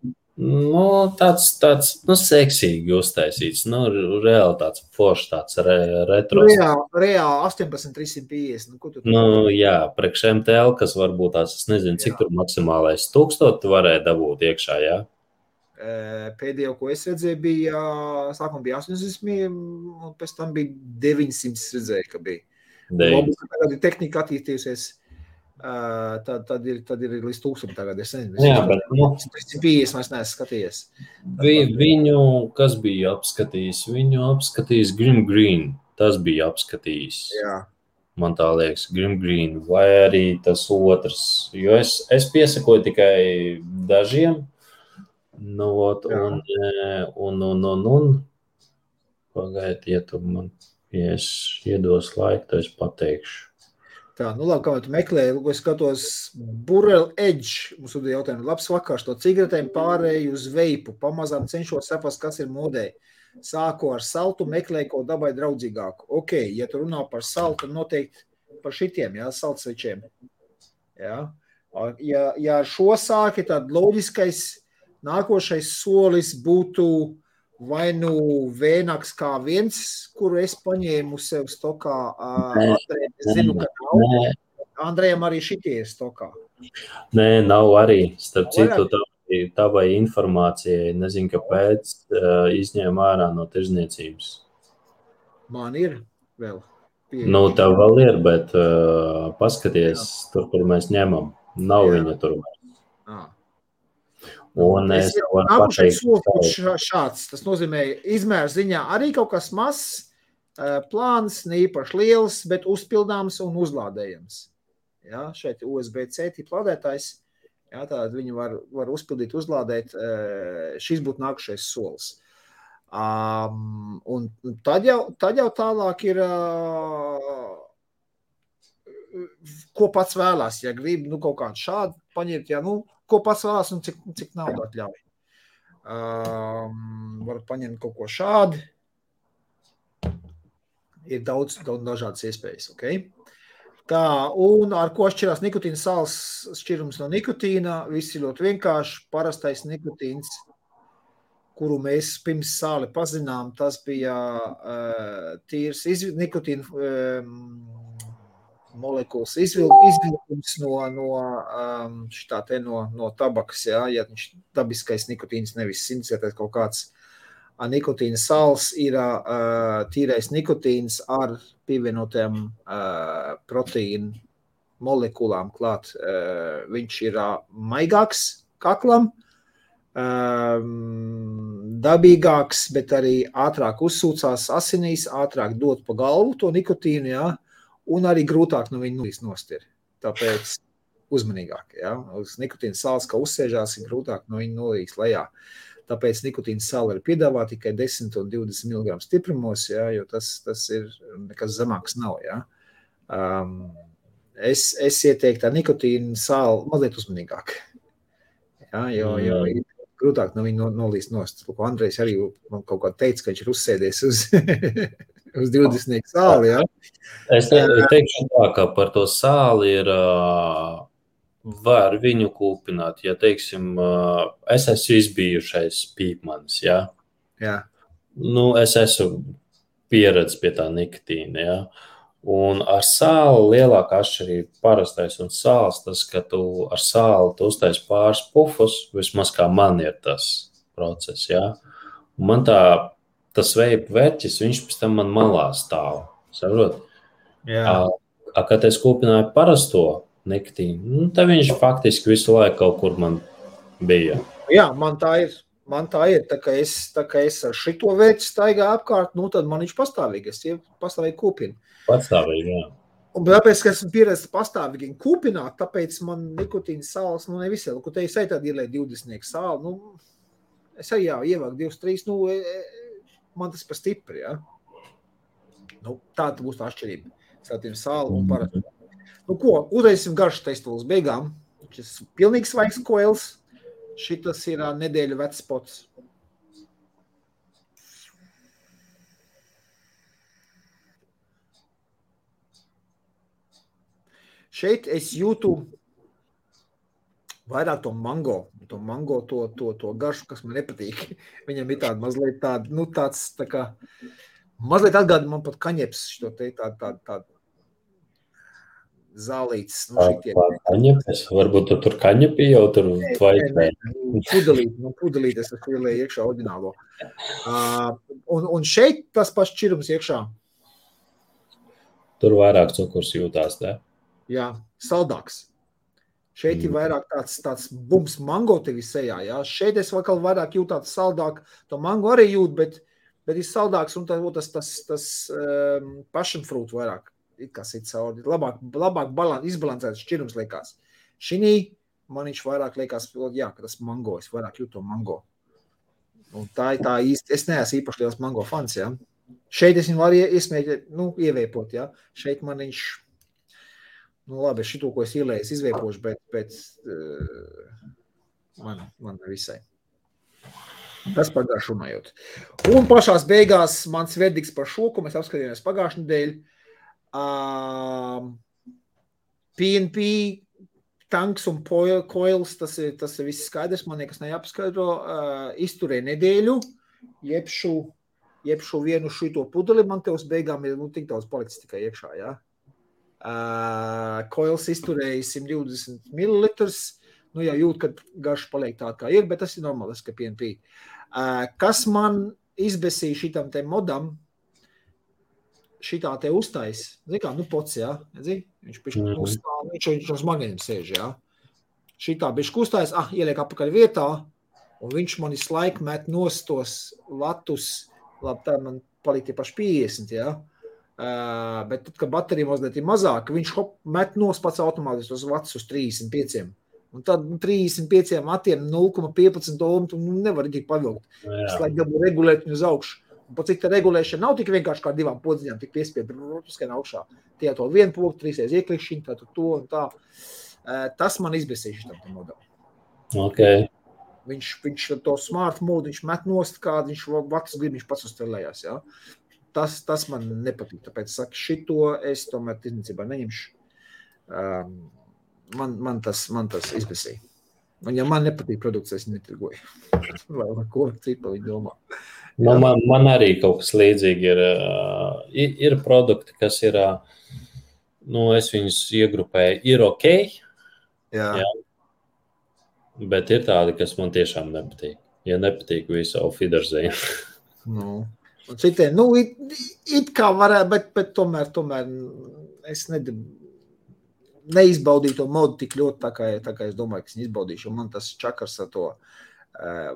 Tāds seksīgi uztaisīts, reāli tāds foršs, tāds retro. Reāli 18350. Ko tu jā, priekš MTL, kas varbūt tās, es nezinu, cik tur maksimālais 1000 varēja dabūt iekšā, jā? Pēdējo, ko es redzēju, bija, sākumā bija 800, un pēc tam bija 900 redzēju, ka bija. Tagad ir tehnika attīstījusies. Tad ir līdz 1000 tagad, es nezinu. Jā, bet 350 vairs neesmu skatījies. Viņu, kas bija apskatījis? Viņu apskatījis Grim Green. Tas bija apskatījis. Jā. Man tā liekas, Grim Green. Vai arī tas otrs. Jo es piesakoju tikai dažiem. Pagaidiet, ja tu man iedos laiku, tad es pateikšu. Tā, labi, kā tu meklēji, es skatos Burrell Edge, mums ir jautājumi, labs vakars, to cigaretēm pārēju uz veipu, pamazām cenšos saprast, kas ir modē. Sāku ar saltu, meklēju kaut dabai draudzīgāku. Ok, ja tu runā par saltu, noteikti par šitiem, jā, saltsvečiem. Jā. Ja ar šo sāki, tad loģiskais nākošais solis būtu vai vēnāks kā viens, kuru es paņēmu sev stokā. Es zinu, ka nav. Andrejam arī šitie ir stokā. Nē, nav arī. Starp citu, tavai informācijai, nezinu, kāpēc, izņēma ārā no tirdzniecības. Man ir vēl. Tev vēl ir, bet paskaties, tur mēs ņemam. Nav viņa tur. Un es varu pateikt, šāds. Tas nozīmē, izmērs ziņā arī kaut kas mazs, plāns, neīpaši liels, bet uzpildāms un uzlādējams. Jā, šeit USB-C tipa lādētājs. Jā, tātad viņi var uzpildīt, uzlādēt. Šis būtu nākušais solis. Un tad jau tālāk ir, ko pats vēlās, ja grib, kaut kādu šādu paņemt, ko pats vēlās un cik naudu atļauj. Var paņemt kaut ko šādi. Ir daudz dažādas iespējas, ok? Tā, un ar ko šķirās nikotīna sāls šķirums no nikotīna? Viss ir ļoti vienkārši. Parastais nikotīns, kuru mēs pirms sāli pazinām, tas bija tīrs nikotīna molekulas izvilkums no tabakas, ja viņš dabiskais nikotīns, nevis sintetētais kaut kāds nikotīna sāls, ir tīrais nikotīns ar pievienotiem proteīnu molekulām klāt. Viņš ir maigāks kaklam, dabīgāks, bet arī ātrāk uzsūcās asinīs, ātrāk dot pa galvu to nikotīnu, ja, un arī grūtāk no viņa nulīs nost ir. Tāpēc uzmanīgāk, ja. Uz nikotīna sāls, kā uzsēžās, ir grūtāk no viņa nulīs lejā. Tāpēc nikotīna sāla ir piedāvā tikai 10 un 20 mg stiprumos, ja, jo tas ir nekas zemāks nav. Ja. Es ieteiktu ar nikotīna sālu mazliet uzmanīgāk, ja, jo ir grūtāk no viņa nolīst nost. Andrejs arī man kaut kā teica, ka viņš ir uzsēdies uz 20 sāli. Ja. Es teikšu tā, ka par to sāli ir... var viņu kūpināt, ja, teiksim, es esmu izbijušais pīpmanis, ja? Jā. Es esmu pieredzis pie tā nikotīna, ja? Un ar sāli lielākā atšķirība parastais un sāls, tas, ka tu ar sāli tu uztais pāris pufus, vismaz kā man ir tas process, ja? Un man tas veipa verķis, viņš pēc tam man malā stāv, saprot? Jā. Kad es kūpināju parasto nikotīnu, tad viņš faktiski visu laiku kaut kur man bija. Jā, man tā ir. Tā kā es ar šito vērķi staigāju apkārt, tad man viņš pastāvīgi. Es pastāvīgi kūpinu. Pastāvīgi, jā. Un tāpēc, ka esmu pieredzis pastāvīgi kūpināt, tāpēc man nikotīna sāls, nevisai. Ko te es arī tādu ielēju 20 sāli, es arī ievāku 2-3, man tas par stipri, jā. Tāda būs tā atšķirība. Starp sāli un parasti. Ko, uzreisim garšu testu līdz beigām. Šis pilnīgi svaigs koils. Šitas ir nedēļu vecs pots. Šeit es jūtu vairāk to mango. To garšu, kas man nepatīk. Viņam ir tāda mazliet tāds tā kā, mazliet atgādina man pat kaņeps šo te tādu zālītes. Kaņepes? Varbūt tu tur kaņepi jau tur tvaiknē. Pudelīt es ielēju iekšā oriģinālo. Un šeit tas pats šķirums iekšā. Tur vairāk cukurs jūtās, ne? Jā, saldāks. Šeit ir vairāk tāds bums mango tevi sejā, jā. Šeit es vēl vairāk jūtu tāds saldāk. To mango arī jūt, bet ir saldāks un tas passion fruit vairāk. Kas ir cauri, labāk izbalansēts šķirums liekas. Šinī man viņš vairāk liekas, jā, ka tas mango, es vairāk jūtu to mango. Un tā īsti, es neesmu īpaši liels mango fans, jā. Šeit es viņu varu ieveipot, jā. Šeit man viņš, labi, šito, ko es ielēju, es izveipošu, bet man visai. Tas par garšu runājot. Un pašās beigās mans verdikts par šo, ko mēs apskatījāmies pagājušajā nedēļā, PNP, tanks un coils, tas ir viss skaidrs, man nekas neapskaidro, izturē nedēļu, jebšu vienu šito pudeli, man te uz beigām ir tik daudz palicis tikai iekšā, jā. Coils izturēja 120 ml, jau jūt, kad garš paliek tā kā ir, bet tas ir normāls, ka PNP. Kas man izbesīja šitam te modam, šitā te uztais, kā, pots, jā, viņš uz magniem sēž, jā. Šitā bišķi uztais, ieliek apakaļ vietā, un viņš man visu laiku met nostos vatus, labi, tā man paliek tie paši 50, jā. Bet tad, kad baterija mazliet ir mazāka, viņš met nos pats automātiski tos vatus uz 35. Un tad 35 matiem 0,15 ohmu tu nevar tik pavilkt. Es laikam dabū regulēt viņu uz augšu. Un pat cik tā regulēšana nav tik vienkārši kā 2 podziņām, tik piespied, skan augšā. Tie to 1 pogu, 3 ieklikšķiņi, tā to un tā. Tas man izbēsīja šitam modelim. Okay. Viņš to smart mode, viņš met nost kādu, viņš vakas grib, viņš pats uzstrelējās, jā. Tas man nepatīk, tāpēc saku, šito es tomēr tirdzniecībā neņemšu. Man tas izbēsīja. Un ja man nepatīk produkts, es netirgoju. Vai ko cipa viņi domā. Man arī kaut kas līdzīgi ir produkti, kas ir, es viņus iegrupēju, ir ok, jā. Bet ir tādi, kas man tiešām nepatīk. Ja nepatīk visu, auf Wiedersehen. Un citiem, it kā varētu, bet tomēr es neizbaudīju to modu tik ļoti, tā kā es domāju, ka es izbaudīšu. Un man tas čakars ar to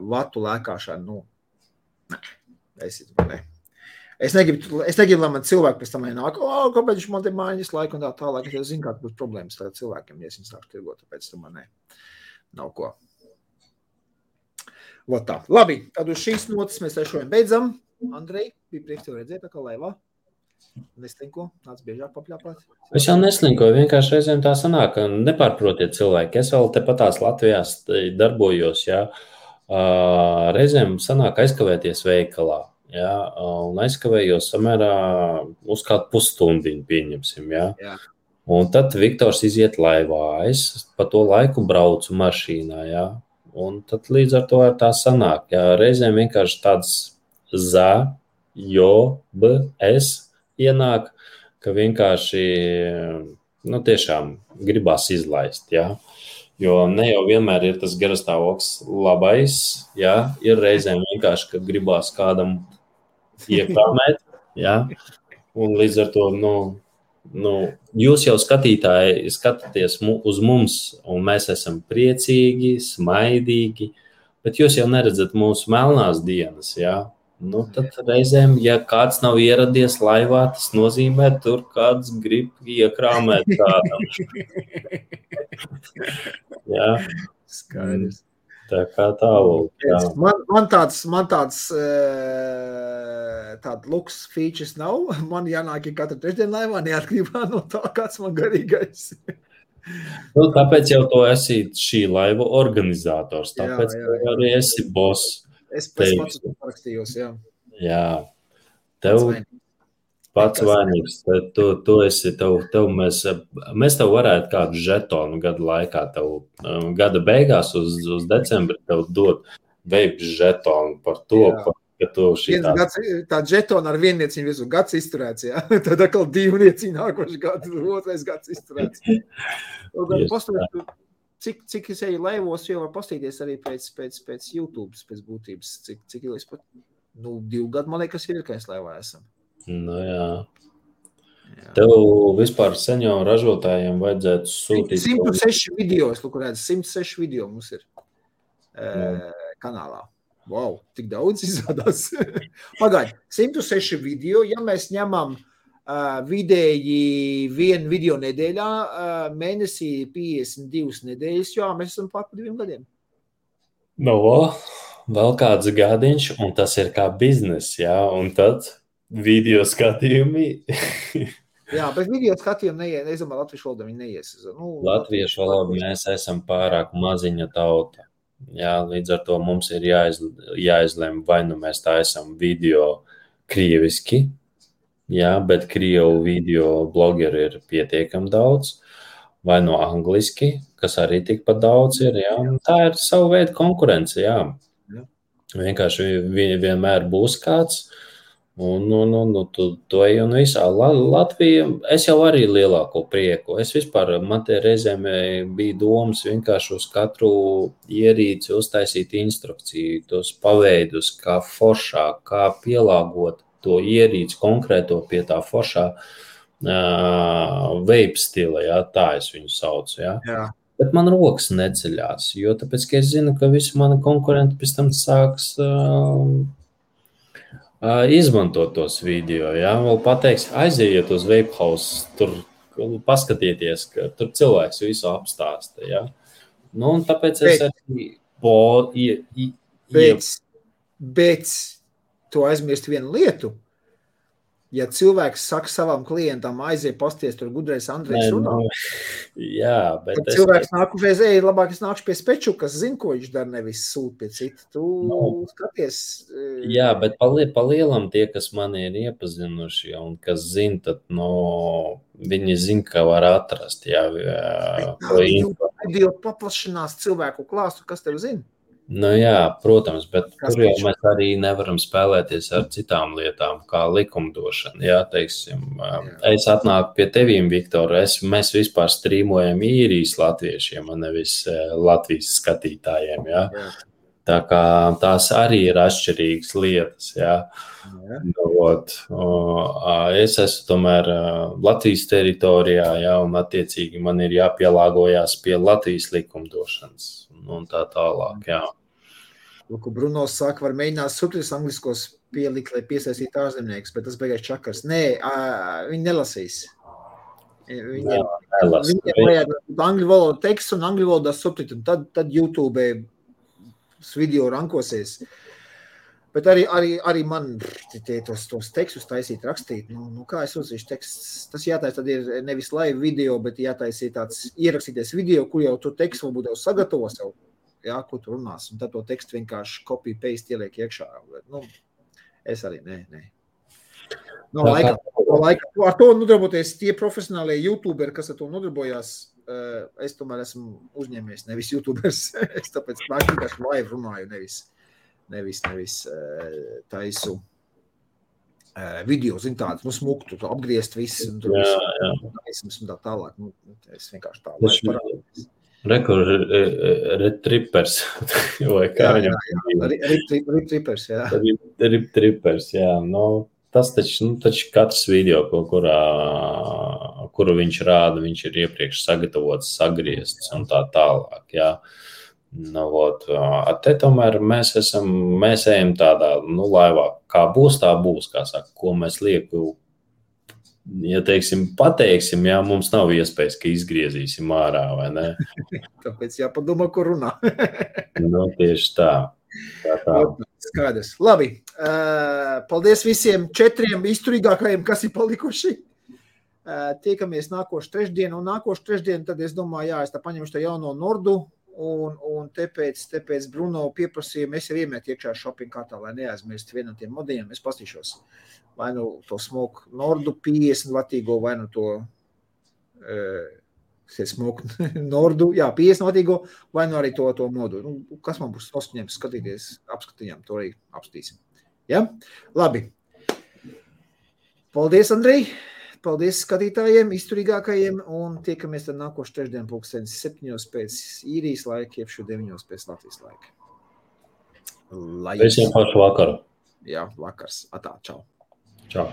vatu lēkāšanu, Es negribu, lai man cilvēki pēc tam nāk, kāpēc viņš man te mājas laiku un tā tālāk, es zinu, kāda būs problēmas tagad cilvēkiem, ja es viņu sāku tirgot, tāpēc tomēr nav ko. Vot tā. Labi, tad uz šīs notas mēs šodien beidzam. Andrej, bija prieks tev redzēt, tā kā laivā. Neslinko, nāc biežāk papļāpāt. Es jau neslinkoju, vienkārši reizēm tā sanāk, nepārprotiet cilvēki. Es vēl tepatās Latvijās darbojos, jā. Reizēm sanāk aizkavēties veikalā, jā, un aizkavējos samērā uz kādu pusstundiņu pieņemsim, jā. Un tad Viktors iziet laivā, es pa to laiku braucu mašīnā, jā, un tad līdz ar to tā sanāk, jā, reizēm vienkārši tāds ienāk, ka vienkārši, tiešām gribās izlaist, jā. Jo ne jau vienmēr ir tas garastāvoklis labais, jā, ir reizēm vienkārši, ka gribās kādam iekrāmēt, jā, un līdz ar to, jūs jau skatītāji skatāties uz mums, un mēs esam priecīgi, smaidīgi, bet jūs jau neredzat mūsu melnās dienas, jā. Tad reizēm, ja kāds nav ieradies laivā, tas nozīmē, tur kāds grib iekrāmēt kādam. Jā. Skaidrs. Tā kā tālāk. Man tāds luks features nav. Man jānāk katru trešdienu laivā, neatkarībā no tā, kāds man garīgais. Tāpēc jau to esi šī laiva organizators. Tāpēc arī esi boss. Es pats parakstījos, jā. Jā. Tev pats vainīgs. Tu esi, mēs tev varētu kādu žetonu gadu laikā, gada beigās uz decembri tev dot veips žetonu par to, ka tu šitā. Tā žetona ar viennieciņu visu gads izturēts, jā. Tad atkal 2 nieciņu nākoši gadu, 2. gads izturēts. Cik es eju laivos, jau var pastīties arī pēc YouTube, pēc būtības, cik ilgi es pat, 2 gadu, man liekas, ir, ka es laivā esam. Jā. Tev vispār senioru ražotājiem vajadzētu sūtīt. 106 video, es lūk, redzu, 106 video mums ir kanālā. Wow, tik daudz izrādās. Pagaid, 106 video, ja mēs ņemam vidēji 1 video nedēļā, mēnesī 52 nedēļas, jo mēs esam pār 2 gadiem. Vēl kāds gadiņš, un tas ir kā biznes, jā, un tad video skatījumi. Jā, bet video skatījumi es domāju, latviešu valodā viņi neies. Latviešu valodā mēs esam pārāk maziņa tauta. Jā, līdz ar to mums ir jāizlem, vai mēs tā esam video krieviski, jā, bet krievu video blogeri ir pietiekami daudz, vai no angliski, kas arī tikpat daudz ir, jā. Tā ir savu veidu konkurence, jā. Vienkārši vienmēr būs kāds, un to ej un visā. Latvija, es jau arī lielāko prieku. Es vispār, man te reizēm bija domas vienkārši uz katru ierīci uztaisīt instrukciju, tos paveidus, kā foršāk, kā pielāgot to ierīci konkrēto pie tā foršā vape stila, jā, tā es viņu saucu, jā. Bet man rokas neceļās, jo tāpēc, ka es zinu, ka visi mani konkurenti pēc tam sāks izmantot tos video, jā, vēl pateiks, aiziet uz Vape House, tur paskatieties, ka tur cilvēks visu apstāsta, jā. Nu, un tāpēc es arī Bet tu aizmirst vienu lietu. Ja cilvēks saka savam klientam, aiziet pasties, tur gudrais Andrejs runā. Jā, bet Kad cilvēks nāk uzreiz, labāk es nākšu pie Speču, kas zina, ko viņš dara, nevis sūt pie cita. Tu skaties. Jā, bet pa lielam tie, kas mani ir iepazinuši un kas zina, tad viņi zina, ka var atrast. Jā, video paplašinās cilvēku klāstu, kas tev zina? Nu jā, protams, bet tur jau mēs arī nevaram spēlēties ar citām lietām, kā likumdošana. Jā, teiksim, es atnāku pie tevīm, Viktor, mēs vispār strīmojam īrijas latviešiem, un nevis Latvijas skatītājiem, jā. Tā kā tās arī ir atšķirīgas lietas, jā. Es esmu tomēr Latvijas teritorijā, jā, un attiecīgi man ir jāpielāgojās pie Latvijas likumdošanas un tā tālāk, jā. Lūk, Bruno saka, var mēģināt subtitulus angliskos pielikt, lai piesaistītu ārzemniekus, bet tas beigās čakars. Nē, viņi nelasīs. Viņiem vajag angļu valodu tekstu un angļu valodā subtitulu. Tad YouTube video rankosies. Bet arī man tos tekstus taisīt, rakstīt. Nu kā es uzzīšu teksts? Tas jātaisa, tad ir nevis live video, bet jātaisīt tāds ierakstīties video, kur jau tu tekstu varbūt jau sagatavo sev. Jā, ko tu runās, un tad to tekstu vienkārši copy, paste ieliek iekšā. Es arī, nē. Laika. Ar to nodarboties tie profesionālie YouTuberi, kas ar to nodarbojās, es tomēr esmu uzņēmējs, nevis YouTubers. Es tāpēc vienkārši live runāju, nevis taisu video, zin tādu, smuktu, apgriezt visu, un tur visu, un tā tālāk. Es vienkārši tā live parādījos. Retrippers, vai kā viņam? Retrippers, jā. Retrippers, jā. Tas taču katrs video, kuru viņš rāda, viņš ir iepriekš sagatavots, sagriezts un tā tālāk, jā. Te tomēr mēs ejam tādā, laivā, kā būs, kā saka, ko mēs lieku. Ja pateiksim, jā, mums nav iespējas, ka izgriezīsim ārā, vai ne? Tāpēc jāpadomā, ko runā. Tieši tā. Skaidrs. Labi. Paldies visiem 4 izturīgākajiem, kas ir palikuši. Tiekamies nākošu trešdienu, un nākošu trešdienu, tad es domāju, jā, es tā paņemšu tā jauno Nordu, un tāpēc Bruno pieprasīja, mēs jau iemet iekšā shopping kartā, lai neaizmirst vienu no tiem modeļiem, es pastīšos. Vai nu to smoke Nordu 50 vatīgo, vai nu to smoke Nordu, jā, 50 vatīgo, vai nu arī to modu. Kas man būs noskuņiem skatīties, apskatījām, to arī apskatīsim. Ja? Labi. Paldies, Andrej. Paldies skatītājiem, izturīgākajiem, un tiekamies tad nākošu trešdien 7:00 pēc īrijas laika, jeb 9:00 pēc Latvijas laika. Visiem pašu vakaru. Jā, vakars. Atā, čau. Čau.